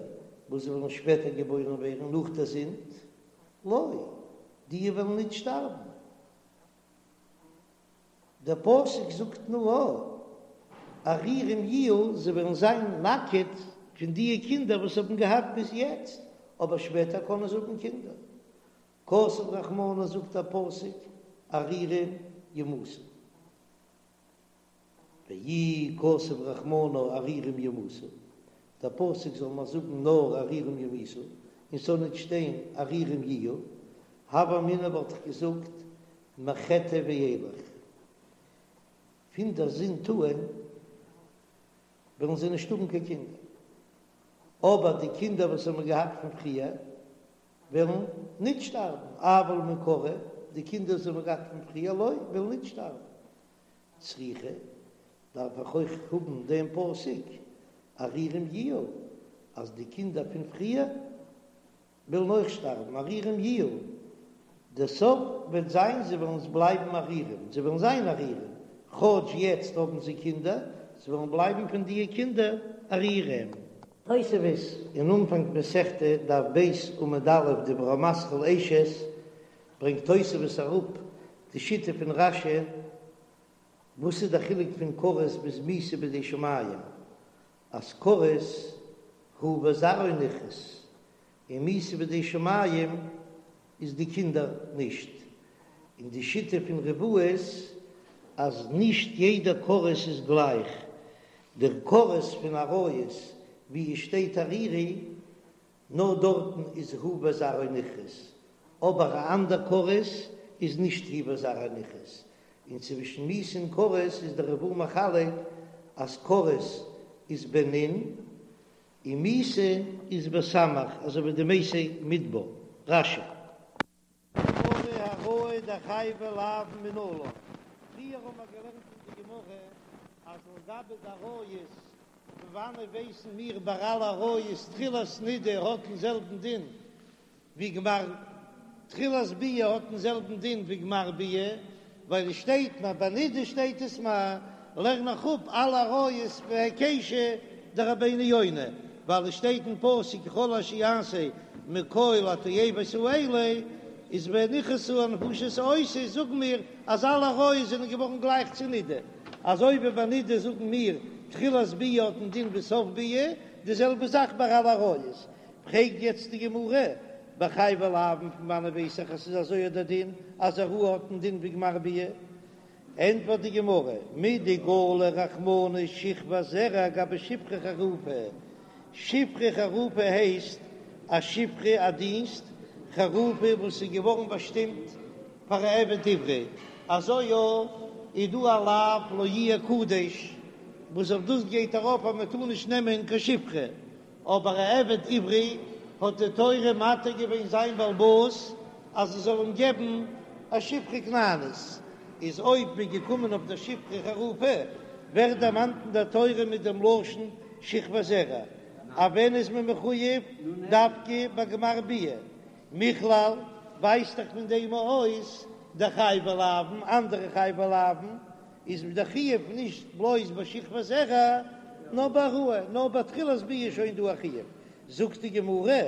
וואס וועלן שפעטער געבוירן ווערן נאך דער זינד, לא, דיע וועלן ניט שטארבן. דער פסוק זאגט נאר ערירים יהיו, זיי וועלן זיין נאקעט פון דיע קינדער וואס האבן געהאט ביז יעצט, אבער שפעטער קענען זיי האבן קינדער. כתב רחמנא זאגט דער פסוק ערירים ימותו. ואי כתב רחמנא ערירים ימותו, דער פסוק זאל מיר זאגן נאר ערירים ימותו, און ס'זאל ניט שטיין ערירים יהיו, הוה אמינא וואלט איך געזאגט מחטא ואילך, פון דער זינד אן וועלן זיי נישט האבן קיין קינדער, אבער די קינדער וואס האבן געהאט פון פריער וועלן ניט שטארבן, אבל מעיקרא, די קינדער וואס האבן געהאט פון פריער לא, וועלן ניט שטארבן. צריכא, דארף איך אויך האבן דעם פסוק ערירים יהיו, אז די קינדער פון פריער וועלן אויך שטארבן, ערירים יהיו, דער סוף וועט זיין זיי וועלן בלייבן ערירים, זיי וועלן זיין ערירים, כאטש יעצט האבן זיי קינדער, זיי וועלן בלייבן פון דיע קינדער ערירים. תוספות אין אנפאנג מסכתא דף ב' עמוד א' דיבור המתחיל אשת ברענגט תוספות אראפ די שיטה פון רש"י, וואס איז די חילוק פון כרת ביז מיתה בידי שמים, אז כרת הוא וזרעו נכרת, און מיתה בידי שמים איז די קינדער נישט, און די שיטה פון ריב"א איז אז נישט יעדע כרת איז גלייך, דער כרת פון עריות ווי עס שטייט ערירי נאר דארטן איז הוא וזרעו נכרת, אבער א אנדער כרת איז נישט הוא וזרעו נכרת, און צווישן מיתה און כרת איז דער ריב"א מחלק אז כרת איז בנ' און מיתה איז בסמך אזוי ווי די מתי מדבר, רש"י. גמרא העראה דחייבי לאוין מנלן, פריער האבן מיר געלערנט אין די גמרא אז לגבי די עריות, פון וואנעט ווייסן מיר ביי אלע עריות תחילת נידה האט דעם זעלבן דין ווי גמר תחילת ביאה האט דעם זעלבן דין ווי גמר ביאה, ווייל עס שטייט מיר ביי נידה שטייט עס מיר לערן איך אפ אלע עריות בהיקשא דרבינו יונה, ווייל עס שטייט אין פסוק כל אשר יעשה מכל התועבות האלה איז ונכרתו הנפשות העושות זאגן מיר אז אלע עריות זענען געווארן גלייך צו נידה, אזוי ווי ביי נידה זאגן מיר תחילת ביאה האט דעם דין ווי סוף ביאה, די זעלבע זאך ביי אלע עריות. פרעגט יעצט די גמרא, בחייבי לאוין פון וואנעט ווייס איך אז ס'איז אזוי דער דין אז העראה האט דעם דין ווי גמר ביאה? ענטפערט די גמרא, מדגלי רחמנא שכבת זרע גבי שפחה חרופה, שפחה חרופה הייסט א שפחה א דינסט חרופה וואס איז געווארן באשטימט פאר א עבד עברי, אזוי אויך איז דא א לאו לא יהיה קדש וואס אויף דאס גייט ארויף אז מען טאר נישט נעמען קיין שפחה, אבער א עבד עברי. האט די תורה מתיר געווען זיין בעל הבית אז ער זאל אים געבן א שפחה כנענית, איז אויב מ'איז געקומען אויף דער שפחה חרופה, ווערט דערמאנט אין דער תורה מיט דעם לשון שכבת זרע, אז ווען איז מען מחויב דווקא ביי גמר ביאה, מכלל ווייזט דאך פון דעם אויס דחייבי לאוין, אנדערע חייבי לאוין איז דער חיוב נישט בלויז ביי שכבת זרע נאר בהעראה, נאר ביי תחילת ביאה איז שוין דא א חיוב, זאגט די גמרא,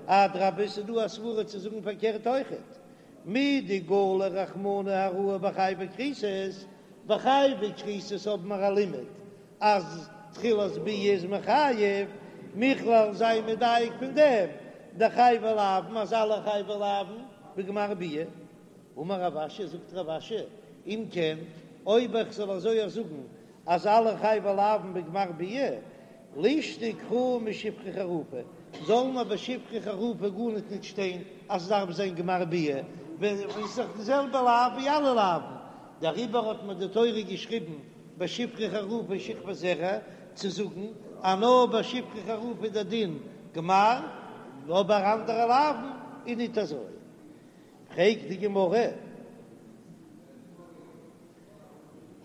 אדרבה ס'איז דא א סברא צו זאגן פארקערט אויכעט, מדגלי רחמנא העראה בחייבי כריתות, ביי חייבי כריתות האבן מיר א לימוד אז תחילת ביאה איז מחייב, מכלל זיי מדייק פון דעם דחייבי לאוין אז אלע חייבי לאוין בגמר ביאה. אמר רב אשי, זאגט רב אשי, אם כן, אויב איך זאל אזוי אויך זאגן אז אלע חייבי לאוין בגמר ביאה, לישתוק קרא משפחה חרופה, זאל מען ביי שפחה חרופה גארניט ניט שטיין אז עס דארף זיין גמר ביאה, ווען עס איז דאך די זעלבע לאו ווי אלע לאוין, דעריבער האט מען די תורה געשריבן ביי שפחה חרופה שכבת זרע, צו זאגן אז נאר ביי שפחה חרופה איז דער דין גמר, אבער אנדערע לאוין איז ניט אזוי. פרעגט די גמרא,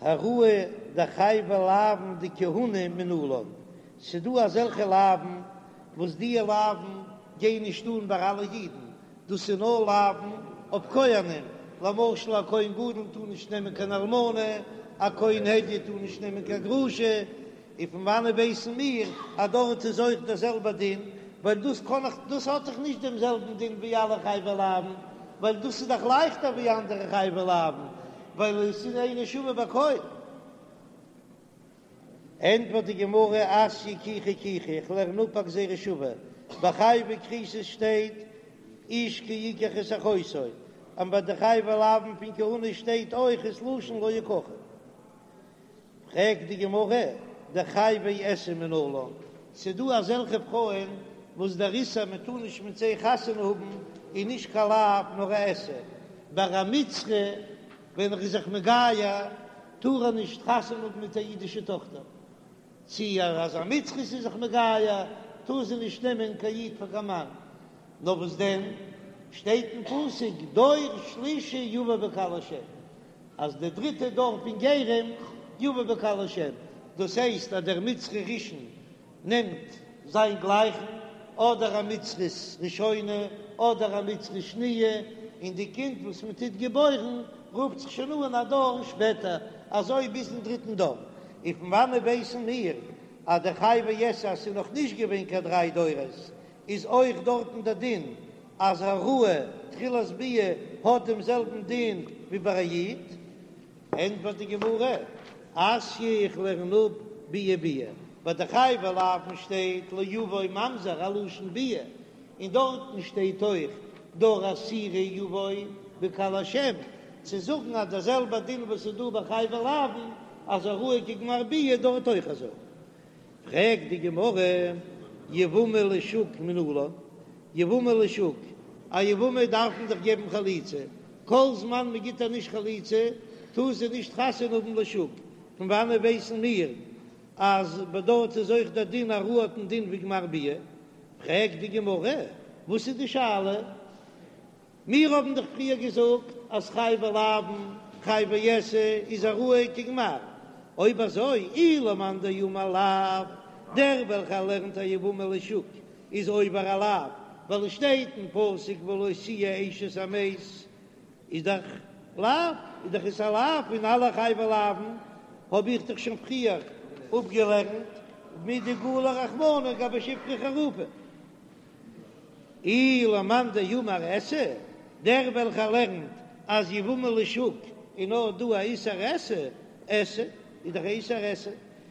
העראה דחייבי לאוין דכהונה מנלן, ס'דא אזעלכע לאוין וואס דיע לאוין גייען נישט אן ביי אלע אידן, דאס איז נאר לאוין אויף כהנים, למשל א כהן גדול טאר נישט נעמען קיין אלמנה, א כהן הדיוט טאר נישט נעמען קיין גרושה, און פון וואנעט ווייסן מיר אז דארט איז אויך דער זעלבער דין, ווייל דאס קען איך, דאס האט דאך נישט דעם זעלבן דין ווי אלע חייבי לאוין, ווייל דאס איז דאך לייכטער ווי אנדערע חייבי לאוין, ווייל עס איז אינו שווה בכל. ענטפערט די גמרא, אתיא קיחה קיחה, איך לערן אפ א גזירה שווה, ביי חייבי כריתות שטייט איש כי יקח את אחותו, און ביי די חייבי לאוין פון כהונה שטייט אויך ס'לשון לא יקחו. פרעגט די גמרא, דחייבי עשה מנלן, ס'דא אזעלכע פרויען וואס דער איסור מען טאר נישט מיט זיי חתונה האבן איז נישט קיין לאו נאר א עשה, ביי א מצרי ווען ער איז זיך מגייר טאר ער נישט חתונה האבן מיט א אידישע טאכטער, צי אז א מצרית איז זיך מגייר טאר זי נישט נעמען קיין איד פאר קיין מאן, נאר וואס דען שטייט אין פסוק דור שלישי יבא בקהל השם, אז די דריטע דור פון גרים יבא בקהל השם, דאס הייסט אז דער מצרי ראשון נעמט זיין גלייכן, אדער א מצרית ראשונה אדער א מצרית שניה, און די קינד וואס מען טוט געבוירן רופט זיך שוין אן א דור שפעטער, אזוי ביזן דריטן דור. און פון וואנעט ווייסן מיר אז די חייבי עשה אז ס'איז נאך נישט געווען קיין דריי דורות איז אויך דארטן דער דין אז העראה תחילת ביאה האט דעם זעלבן דין ווי ביי א איד? ענטפערט די גמרא, אתיא איך לערן אפ ביאה ביאה, ביי די חייבי לאוין שטייט לא יבוא ממזר א לשון ביאה, און דארטן שטייט אויך דור עשירי יבוא בקהל השם, צו זאגן אז דער זעלבער דין וואס איז דא ביי חייבי לאוין אז העראה כגמר ביאה דארט אויך אזוי. פרעגט די גמרא, יבמה לשוק מנלן, יבמה לשוק, א יבמה דארף מען דאך געבן חליצה, כל זמן מען גיט איר נישט חליצה טאר זי נישט חתונה האבן לשוק, פון וואנעט ווייסן מיר אז ביי דארט איז אויך דער דין העראה האט דעם דין ווי גמר ביאה? פרעגט די גמרא, וואס איז די שאלה? מיר האבן דאך פריער געזאגט אז חייבי לאוין, חייבי עשה איז העראה כגמר, אויב אזוי אי למאן דאמר לאו, דער וועלכער לערנט א יבמה לשוק איז עובר א לאו, ווייל עס שטייט אין פסוק ולא תהיה אשת המת, איז דאך לאו, איז דאך עס א לאו פון אלע חייבי לאוין, האב איך דאך שוין פריער אפגעלערנט מדגלי רחמנא גבי שפחה חרופה. אי למאן דאמר עשה, דער וועלכער לערנט אז יבמה לשוק איז נאר דא א איסור עשה, עשה איז דאך א איסור עשה,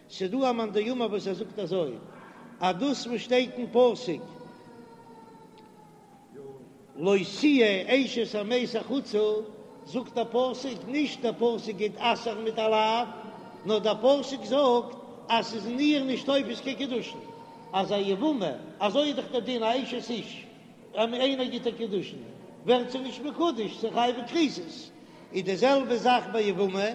ס'דא א מאן דאמר וואס ער זאגט אזוי אז דאס וואס שטייט אין פסוק לא תהיה אשת המת החוצה, זאגט דער פסוק נישט דער פסוק גייט אסר'ן מיט א לאו, נאר דער פסוק זאגט אז ס'איז אין איר נישט תופס קיין קידושין. אז א יבמה, אזוי איז דאך דער דין א אשת איש, אז איינער גיט איר קידושין ווערט זי נישט מקודש, ס'איז חייבי כריתות, איז די זעלבע זאך ביי יבמה,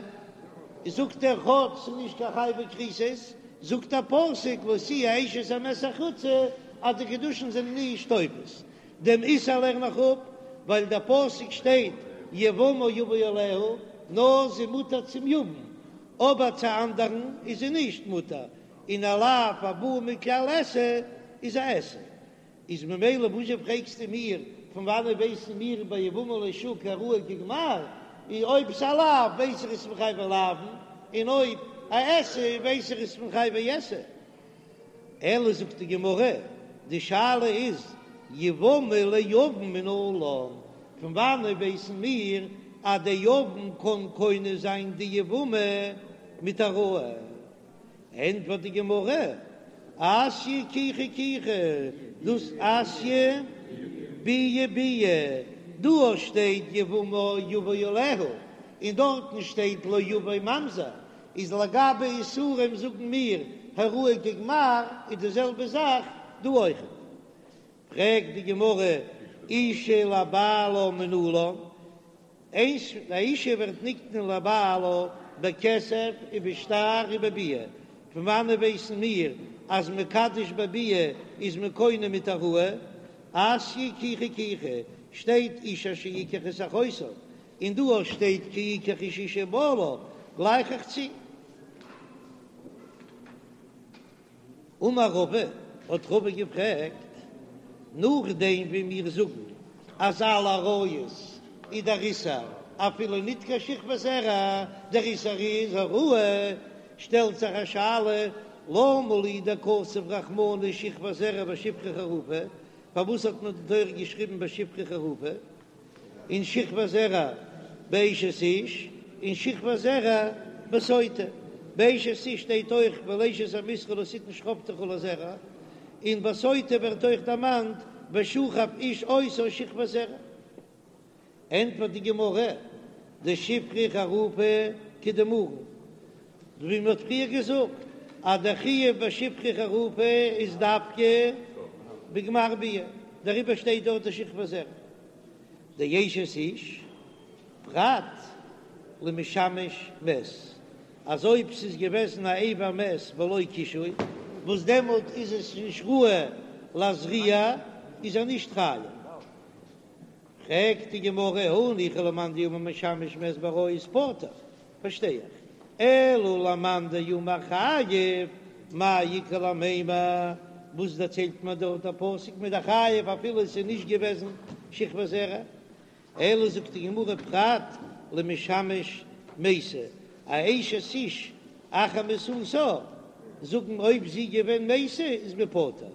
זאגט ער כאטש ס'איז נישט קיין חייבי כריתות, זאגט דער פסוק לא תהיה אשת המת החוצה. אז די קידושין זענען נישט תופס. דעם איסור לערן איך אפ ווייל דער פסוק שטייט יבמה יבא עליה, נאר זי מותר צום יבם, אבער צו אנדערן איז זי נישט מותר, און א לאו הבא מכלל עשה איז א עשה. איז ממילא וואזשע פרעגסטו מיר פון וואנעט ווייסן מיר ביי יבמה לשוק הראוי כגמר, און אויב ס'א לאו ווייס איך עס פון חייבי לאוין, און אויב א עשה ווייס איך עס פון חייבי עשה. אלא זאגט די גמרא, די שאלה איז יבמה ליבם מנלן, פון וואנעט ווייסן מיר אז דער יבם קען קונה זיין די יבמה מיט העראה? ענטפערט די גמרא, אתיא קיחה קיחה, דאס אתיא ביאה ביאה, דא שטייט יבמה יבא עליה, און דארטן שטייט לא יבא ממזר, איז לגבי איסורים זאגן מיר העראה כגמר, איז די זעלבע זאך דא אויכעט. פרעגט די גמרא, אישה לבעלה מנלן, איינס, א אישה ווערט נקנה לבעלה בכסף ובשטר ובביאה, פון וואנעט ווייסן מיר אז מקדש בביאה איז מען קונה מיט העראה? אתיא קיחה קיחה, שטייט איש אשר יקח את אחותו, און דא אויך שטייט כי יקח איש אשה ובעלה, גלייך איך צו. אמר רבא, האט רבא געפרעגט, נאכדעם ווי מיר זאגן אז אלע עריות איז דער איסור אפילו ניט קיין שכבת זרע, דער איסור איז העראה, שטעלט זיך א שאלה, למה לי דכתב רחמנא שכבת זרע בשפחה חרופה, פארוואס האט מען די תורה געשריבן בשפחה חרופה? און שכבת זרע באשת איש, און שכבת זרע בסוטה. באשת איש שטייט אויך ואל אשת עמיתך לא תתן שכבתך לזרע, און בסוטה ווערט אויך דערמאנט ושכב איש אותה שכבת זרע. ענטפערט די גמרא, דשפחה חרופה כדאמרן, ווי מען האט פריער געזאגט אז דער חיוב ביי שפחה חרופה איז דווקא בגמר ביאה, דעריבער שטייט דארט די שכבת זרע. דאשת איש פרט למשמש מת, אז אויב ס'איז געוועזן א אבר מת בלא קישוי, וואס דעמאלט איז עס נישט ראוי להזריע, איז ער נישט חייב. פרעגט די גמרא, הניחא למאן דאמר משמש מת בעריות פטור, פארשטיי איך, אלא למאן דאמר חייב, מאי איכא למימר, וואס דערציילט מיר דארט דער פסוק מ'איז דאך חייב אפילו עס איז נישט געוועזן שכבת זרע, אלא זאגט די גמרא פרט למשמש מתה, א אשת איש אחר מיתתה, זאגן אויב זי געווען מתה איז מען פטור,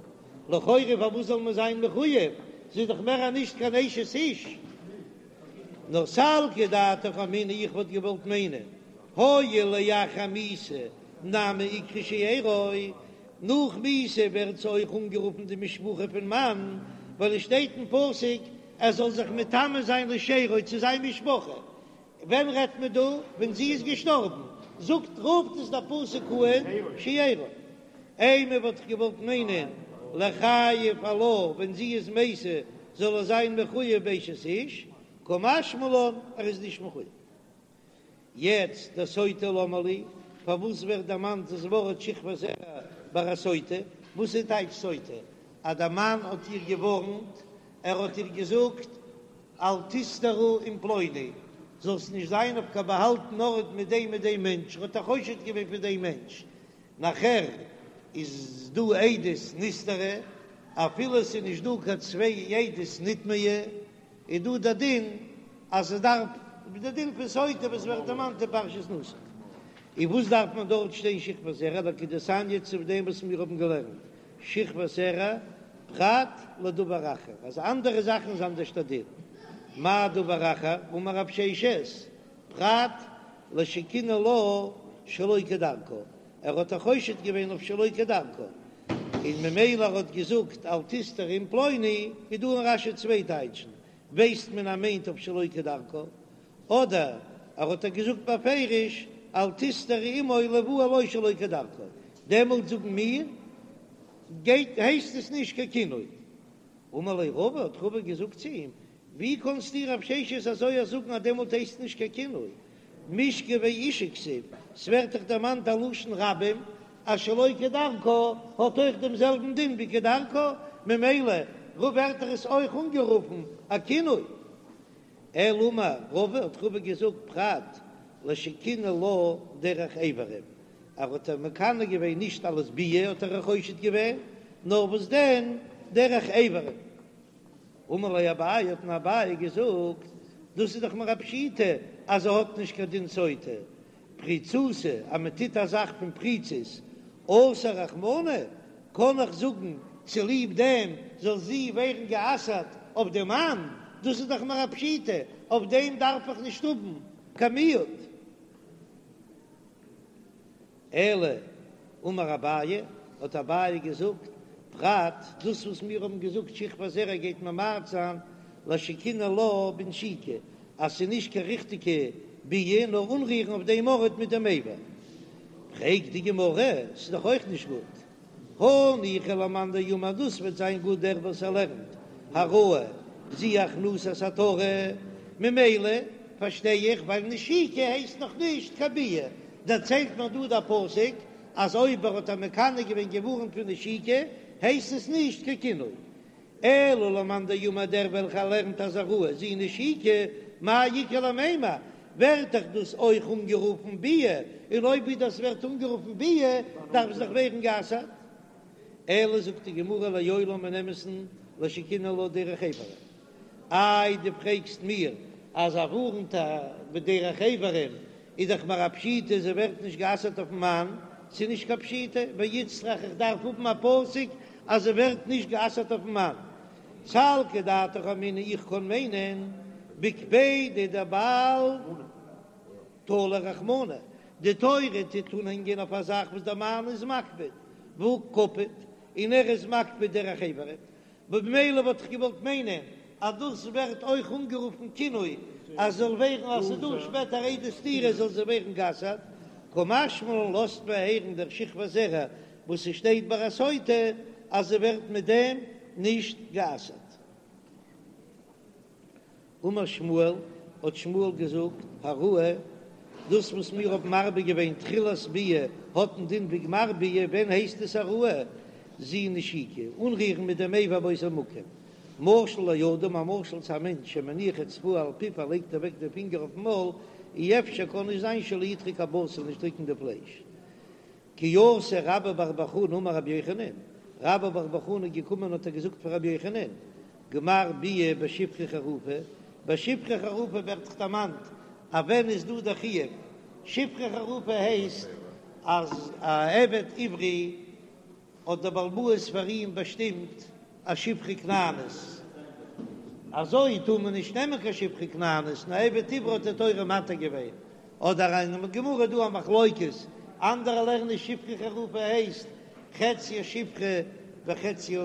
לכאורה פארוואס זאל מען זיין מחוייב, זי איז דאך מער נישט קיין אשת איש. נאר סלקא דעתך אמינא איך וואלט געוואלט מיינען הואיל לאחר מיתה נמי איקרי שארו, נאך מיתה ווערט זי אויך אנגערופן די משפחה פון מאן, ווייל עס שטייט אין פסוק ער זאל זיך מטמא זיין לשארו צו זיין משפחה, ווען רעדט מען דא? ווען זי איז געשטארבן, זאגט רופט עס דער פסוק אן שארו. אימא וואלט איך געוואלט מיינען ליחייב עלה ווען זי איז מתה זאל ער זיין מחויב באשת איש, קא משמע לן ער איז נישט מחויב. יעצט דסוטה למה לי, פארוואס ווערט דערמאנט דאס ווארט שכבת זרע ביי א סוטה? וואס איז טייטש סוטה? אז דער מאן האט איר געווארנט, ער האט איר געזאגט אל תסתרי עם פלוני, זאלסט נישט זיין אויף קיין באהאלטן ארט מיט דעם מיט דעם מענטש, ער האט איר חושד געווען פון דעם מענטש, נאכער איז דא עדות נסתרה, אפילו עס איז נישט דא קיין צוויי עדות נטמאה, איז דא דער דין אז עס דארף, דער דין פון סוטה וואס ווערט דערמאנט אין פרשת נשא. און וואס דארף מען דארט שטיין שכבת זרע, לכדתניא צו דעם וואס מיר האבן געלערנט שכבת זרע פרט לדבר אחר, אז אנדערע זאכן איז אנדערש דער דין, מאי דבר אחר, אמר רב ששת, פרט לשקינא לה שלא כדרכה, ער האט איר חושד געווען אויף שלא כדרכה, און ממילא ער האט געזאגט אל תסתרי עם פלוני, איז דא אין רש"י צוויי טייטשן, ווייסט מען אז מיינט אויף שלא כדרכה, אדער ער האט איר געזאגט בפירוש אל תסתרי עמו ליבעל לו שלא כדרכה, דעמאלט זאגן מיר גייט הייסט עס נישט קיין קינוי. אמר ליה רבא, האט רבא געזאגט צו אים, ווי קאנסטו רב ששת אזוי א זאגן אז דעמאלט הייסט נישט קיין קינוי? משכבי אשה כתיב, ס'ווערט דאך דערמאנט א לשון רבים אז שלא כדרכה האט אויך דעם זעלבן דין ווי כדרכה, ממילא ווערט דאך עס אויך אנגערופן א קינוי. אלא אמר רבא האט רבא געזאגט פרט לשקינא לה דרך אברים, ער האט איר מקנא געווען נישט אלס ביאה האט ער איר חושד געווען, נאר וואס דען דרך אברים. אמר ליה אביי האט אים אביי געזאגט, דאס איז דאך מיר א פשיטא אז זי האט נישט קיין דין סוטה, פריצותא אז מען טוט א זאך פון פריצות אסר רחמנא, קען איך זאגן צוליב דעם זאל זי ווערן גע'אסר'ט אויף דעם מאן, דאס איז דאך מיר א פשיטא, אויף דעם דארף איך נישט האבן קיין מיעוט. אלא אמר אביי, האט אביי געזאגט, פרט דאס וואס מיר האבן געזאגט שכבת זרע גייט ממעט זיין לשקינא לה בנשיקה, אז ס'איז נישט קיין ריכטיגע ביאה נאר אנרירן אויף דעם ארט מיט דעם אבר. פרעגט די גמרא, ס'איז דאך אויך נישט גוט, הניחא למאן דאמר דאס וועט זיין גוט דער וואס ער לערנט העראה זו הכנסת עטרה, ממילא פארשטיי איך ווייל נשיקה הייסט נאך נישט קיין ביאה, דערציילט מיר דא דער פסוק אז אויב ער האט איר מקנא געווען געווארנט פון נשיקה הייסט עס נישט קיין קינוי, אלא למאן דאמר דער וועלכער לערנט אז העראה זו נשיקה מאי איכא למימר, ווערט דאך דאס אויך אנגערופן ביאה, און אויב דאס ווערט אנגערופן ביאה דארף עס דאך ווערן גע'אסר'ט. אלא זאגט די גמרא לעולם אין אמת'ן לשקינא לה דרך אברים. איי דו פרעגסט מיר אז ער ווארנט איר בדרך אברים איז דאך מיר א פשיטא זי ווערט נישט גע'אסר'ט אויפן מאן, ס'איז נישט קיין פשיטא, ואיצטריך איך דארף האבן א פסוק אז זי ווערט נישט גע'אסר'ט אויפן מאן. סלקא דעתך אמינא איך קען מיינען בקפידא דבעל תלי רחמנא, די תורה טוט אנהענגען אויף א זאך וואס דער מאן איז מקפיד, והא קפיד, און ער איז מקפיד דרך אברים, במילא וואלט איך געוואלט מיינען אז דאס ווערט אויך אנגערופן קינוי, אז זאל ווערן אז ס'איז דא שפעטער עדי סתירה זאל זי ווערן גע'אסר'ט, קא משמע לן לאזט מען הערן דער שכבת זרע וואס ס'שטייט ביי א סוטה אז זי ווערט מיט דעם נישט גע'אסר'ט. אמר שמואל, האט שמואל געזאגט, העראה, דאס וואס מיר האבן מרבה געווען תחילת ביאה האט א דין ווי גמר ביאה, ווען הייסט עס העראה? זו נשיקה, אנרירן מיט דעם אבר באותו מקום. משל לאדם, א משל צו א מענטש שמניח אצבעו על פיו ער לייגט אוועק די פינגער אויפן מויל, אי אפשר קען נישט זיין שלא ידחוק הבשר נישט דריקן די פלייש. כי אתא רבה בר בר חנה אמר רבי יוחנן, רבה בר בר חנה איז געקומען האט ער געזאגט פאר רבי יוחנן, גמר ביאה בשפחה חרופה, ביי שפחה חרופה ווערט דאך דערמאנט אז ווען איז דא דער חיוב, שפחה חרופה הייסט אז א עבד עברי האט דער בעל הבית פאר אים באשטימט א שפחה כנענית, אזוי טאר מען נישט נעמען קיין שפחה כנענית, נאר עבד עברי האט די תורה מתיר געווען, אדער אין גמרא איז דא א מחלוקת, אנדערע לערנען שפחה חרופה הייסט חציה שפחה וחציה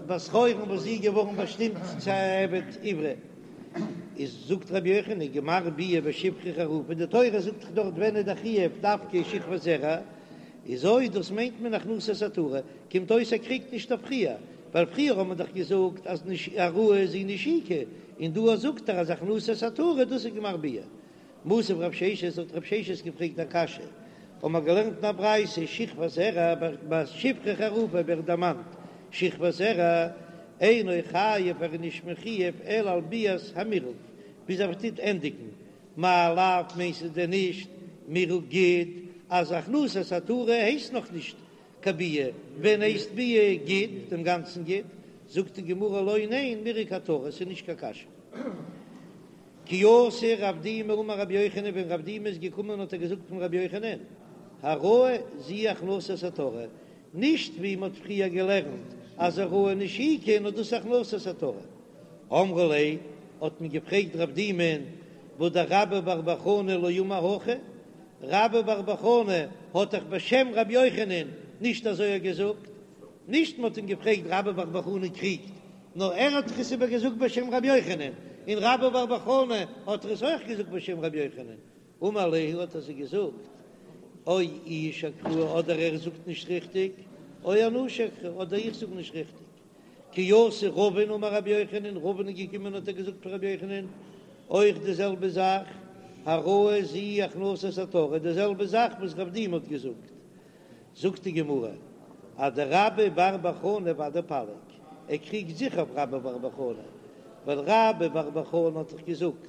בת חורין וואס זי איז געווארן באשטימט צו א עבד עברי, איז זאגט רבי יוחנן גמר ביאה בשפחה חרופה, די תורה זאגט דאך דארט ווען איז די חיוב דווקא שכבת זרע, איז אויב דאס מיינט מען הכנסת עטרה, קומט אויס ער קריגט נישט אויף פריער, ווייל פריער האט מען דאך געזאגט אז העראה זו נשיקה, און דא זאגט ער אז הכנסת עטרה דאס איז גמר ביאה. מתיב רב ששת האט רב ששת געפרעגט א קשיא, האבן מיר געלערנט אין א ברייתא שכבת זרע ביי שפחה חרופה ווערט דערמאנט שכבת זרע אינו חייב ער איז נישט מחויב אלא על ביאת המירוק ביז ער טוט ענדיגן מאי לאו מיינט עס דען נישט מירוק גיד אז הכנסת עטרה הייסט נאך נישט קיין ביאה, ווען הייסט ביאה גיד דעם גאנצן גיד? זאגט די גמרא לא ניין מירוק עטרה ס'איז נישט קיין קשיא. כי אתא רב דימי אמר רבי יוחנן ווען רב דימי איז געקומען האט ער געזאגט פון רבי יוחנן העראה זו הכנסת עטרה נישט ווי מ'האט פריער געלערנט אז העראה נשיקה נאר דאס הכנסת עטרה אמרו ליה האט מען געפרעגט רב דימי'ן והא דרבה בר בר חנה לא אמר הכי רבה בר בר חנה האט דאך בשם רבי יוחנן נישט אזוי געזאגט נישט מ'האט אים געפרעגט רבה בר בר חנה קריגט נאר ער האט דאך עס איבער געזאגט בשם רבי יוחנן, און רבה בר בר חנה האט עס אויך געזאגט בשם רבי יוחנן, אמר להו האט ער זיי געזאגט, או איהו שקראי אדער ער זאגט נישט ריכטיג, או אנא שקרי אדער איך זאג נישט ריכטיג. כי אתא רבין אמר רבי יוחנן, רבין איז געקומען האט ער געזאגט פאר רבי יוחנן אויך די זעלבע זאך, העראה זו הכנסת עטרה, די זעלבע זאך וואס רב דימי האט געזאגט. זאגט די גמרא אדרבה בר בר חנה ודאי פליג. ער קריגט זיכער אויף רבה בר בר חנה, ווייל רבה בר בר חנה האט דאך געזאגט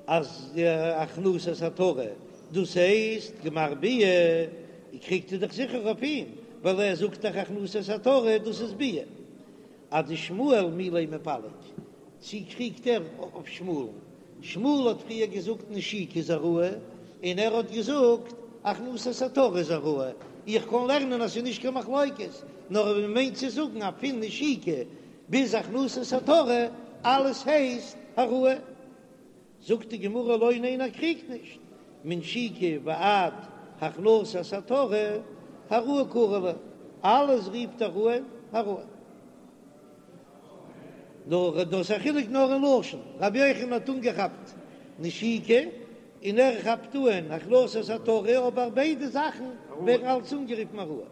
אז הכנסת עטרה דאס הייסט גמר ביאה, קריגט ער דאך זיכער אויף אים, ווייל ער זאגט דאך הכנסת עטרה דאס איז ביאה. אדשמואל מי לא מיפלג, צי קריגט ער אויף שמואל'ן? שמואל האט פריער געזאגט נשיקה איז העראה, און ער האט געזאגט הכנסת עטרה איז העראה. איך קען לערנען אז ס'איז נישט קיין מחלוקת, נאר מען מיינט צו זאגן אז פון נשיקה ביז הכנסת עטרה אלעס הייסט העראה. זאגט די גמרא לא ניין ער קריגט נישט, מנשיקה ועד הכנסת עטרה העראה קרי לה, אלעס רופט ער אן העראה. נאר דאס א חילוק נאר אין לשון, רבי יוחנן האט אנגעכאפט נשיקה און ער כאפט אן הכנסת עטרה, אבער ביידע זאכן ווערן אלץ אנגערופן העראה.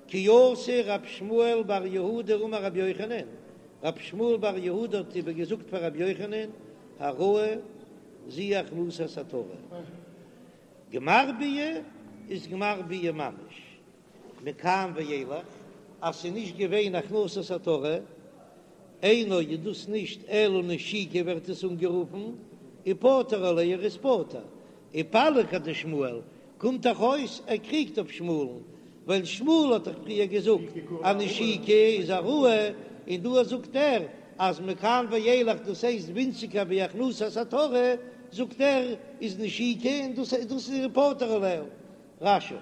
כי אתא רב שמואל בר יהודה אמר רבי יוחנן, רב שמואל בר יהודה האט איבער געזאגט פאר רבי יוחנן, העראה זו הכנסת עטרה. גמר ביאה איז גמר ביאה ממש, מכאן ואילך אז ס'איז נישט געווען הכנסת עטרה, אינו איז דאס נישט אלא נשיקה ווערט עס אנגערופן, ופטור עליה ער איז פטור, ופליג אדשמואל, קומט דאך אויס ער קריגט אויף שמואל'ן, ווייל שמואל האט דאך פריער געזאגט אז נשיקה איז העראה, און דא זאגט ער אז מכאן ואילך דאס הייסט ווינציגער ווי הכנסת עטרה, זאגט ער איז נשיקה און דאס דאס איז פטור עליה. רש"י.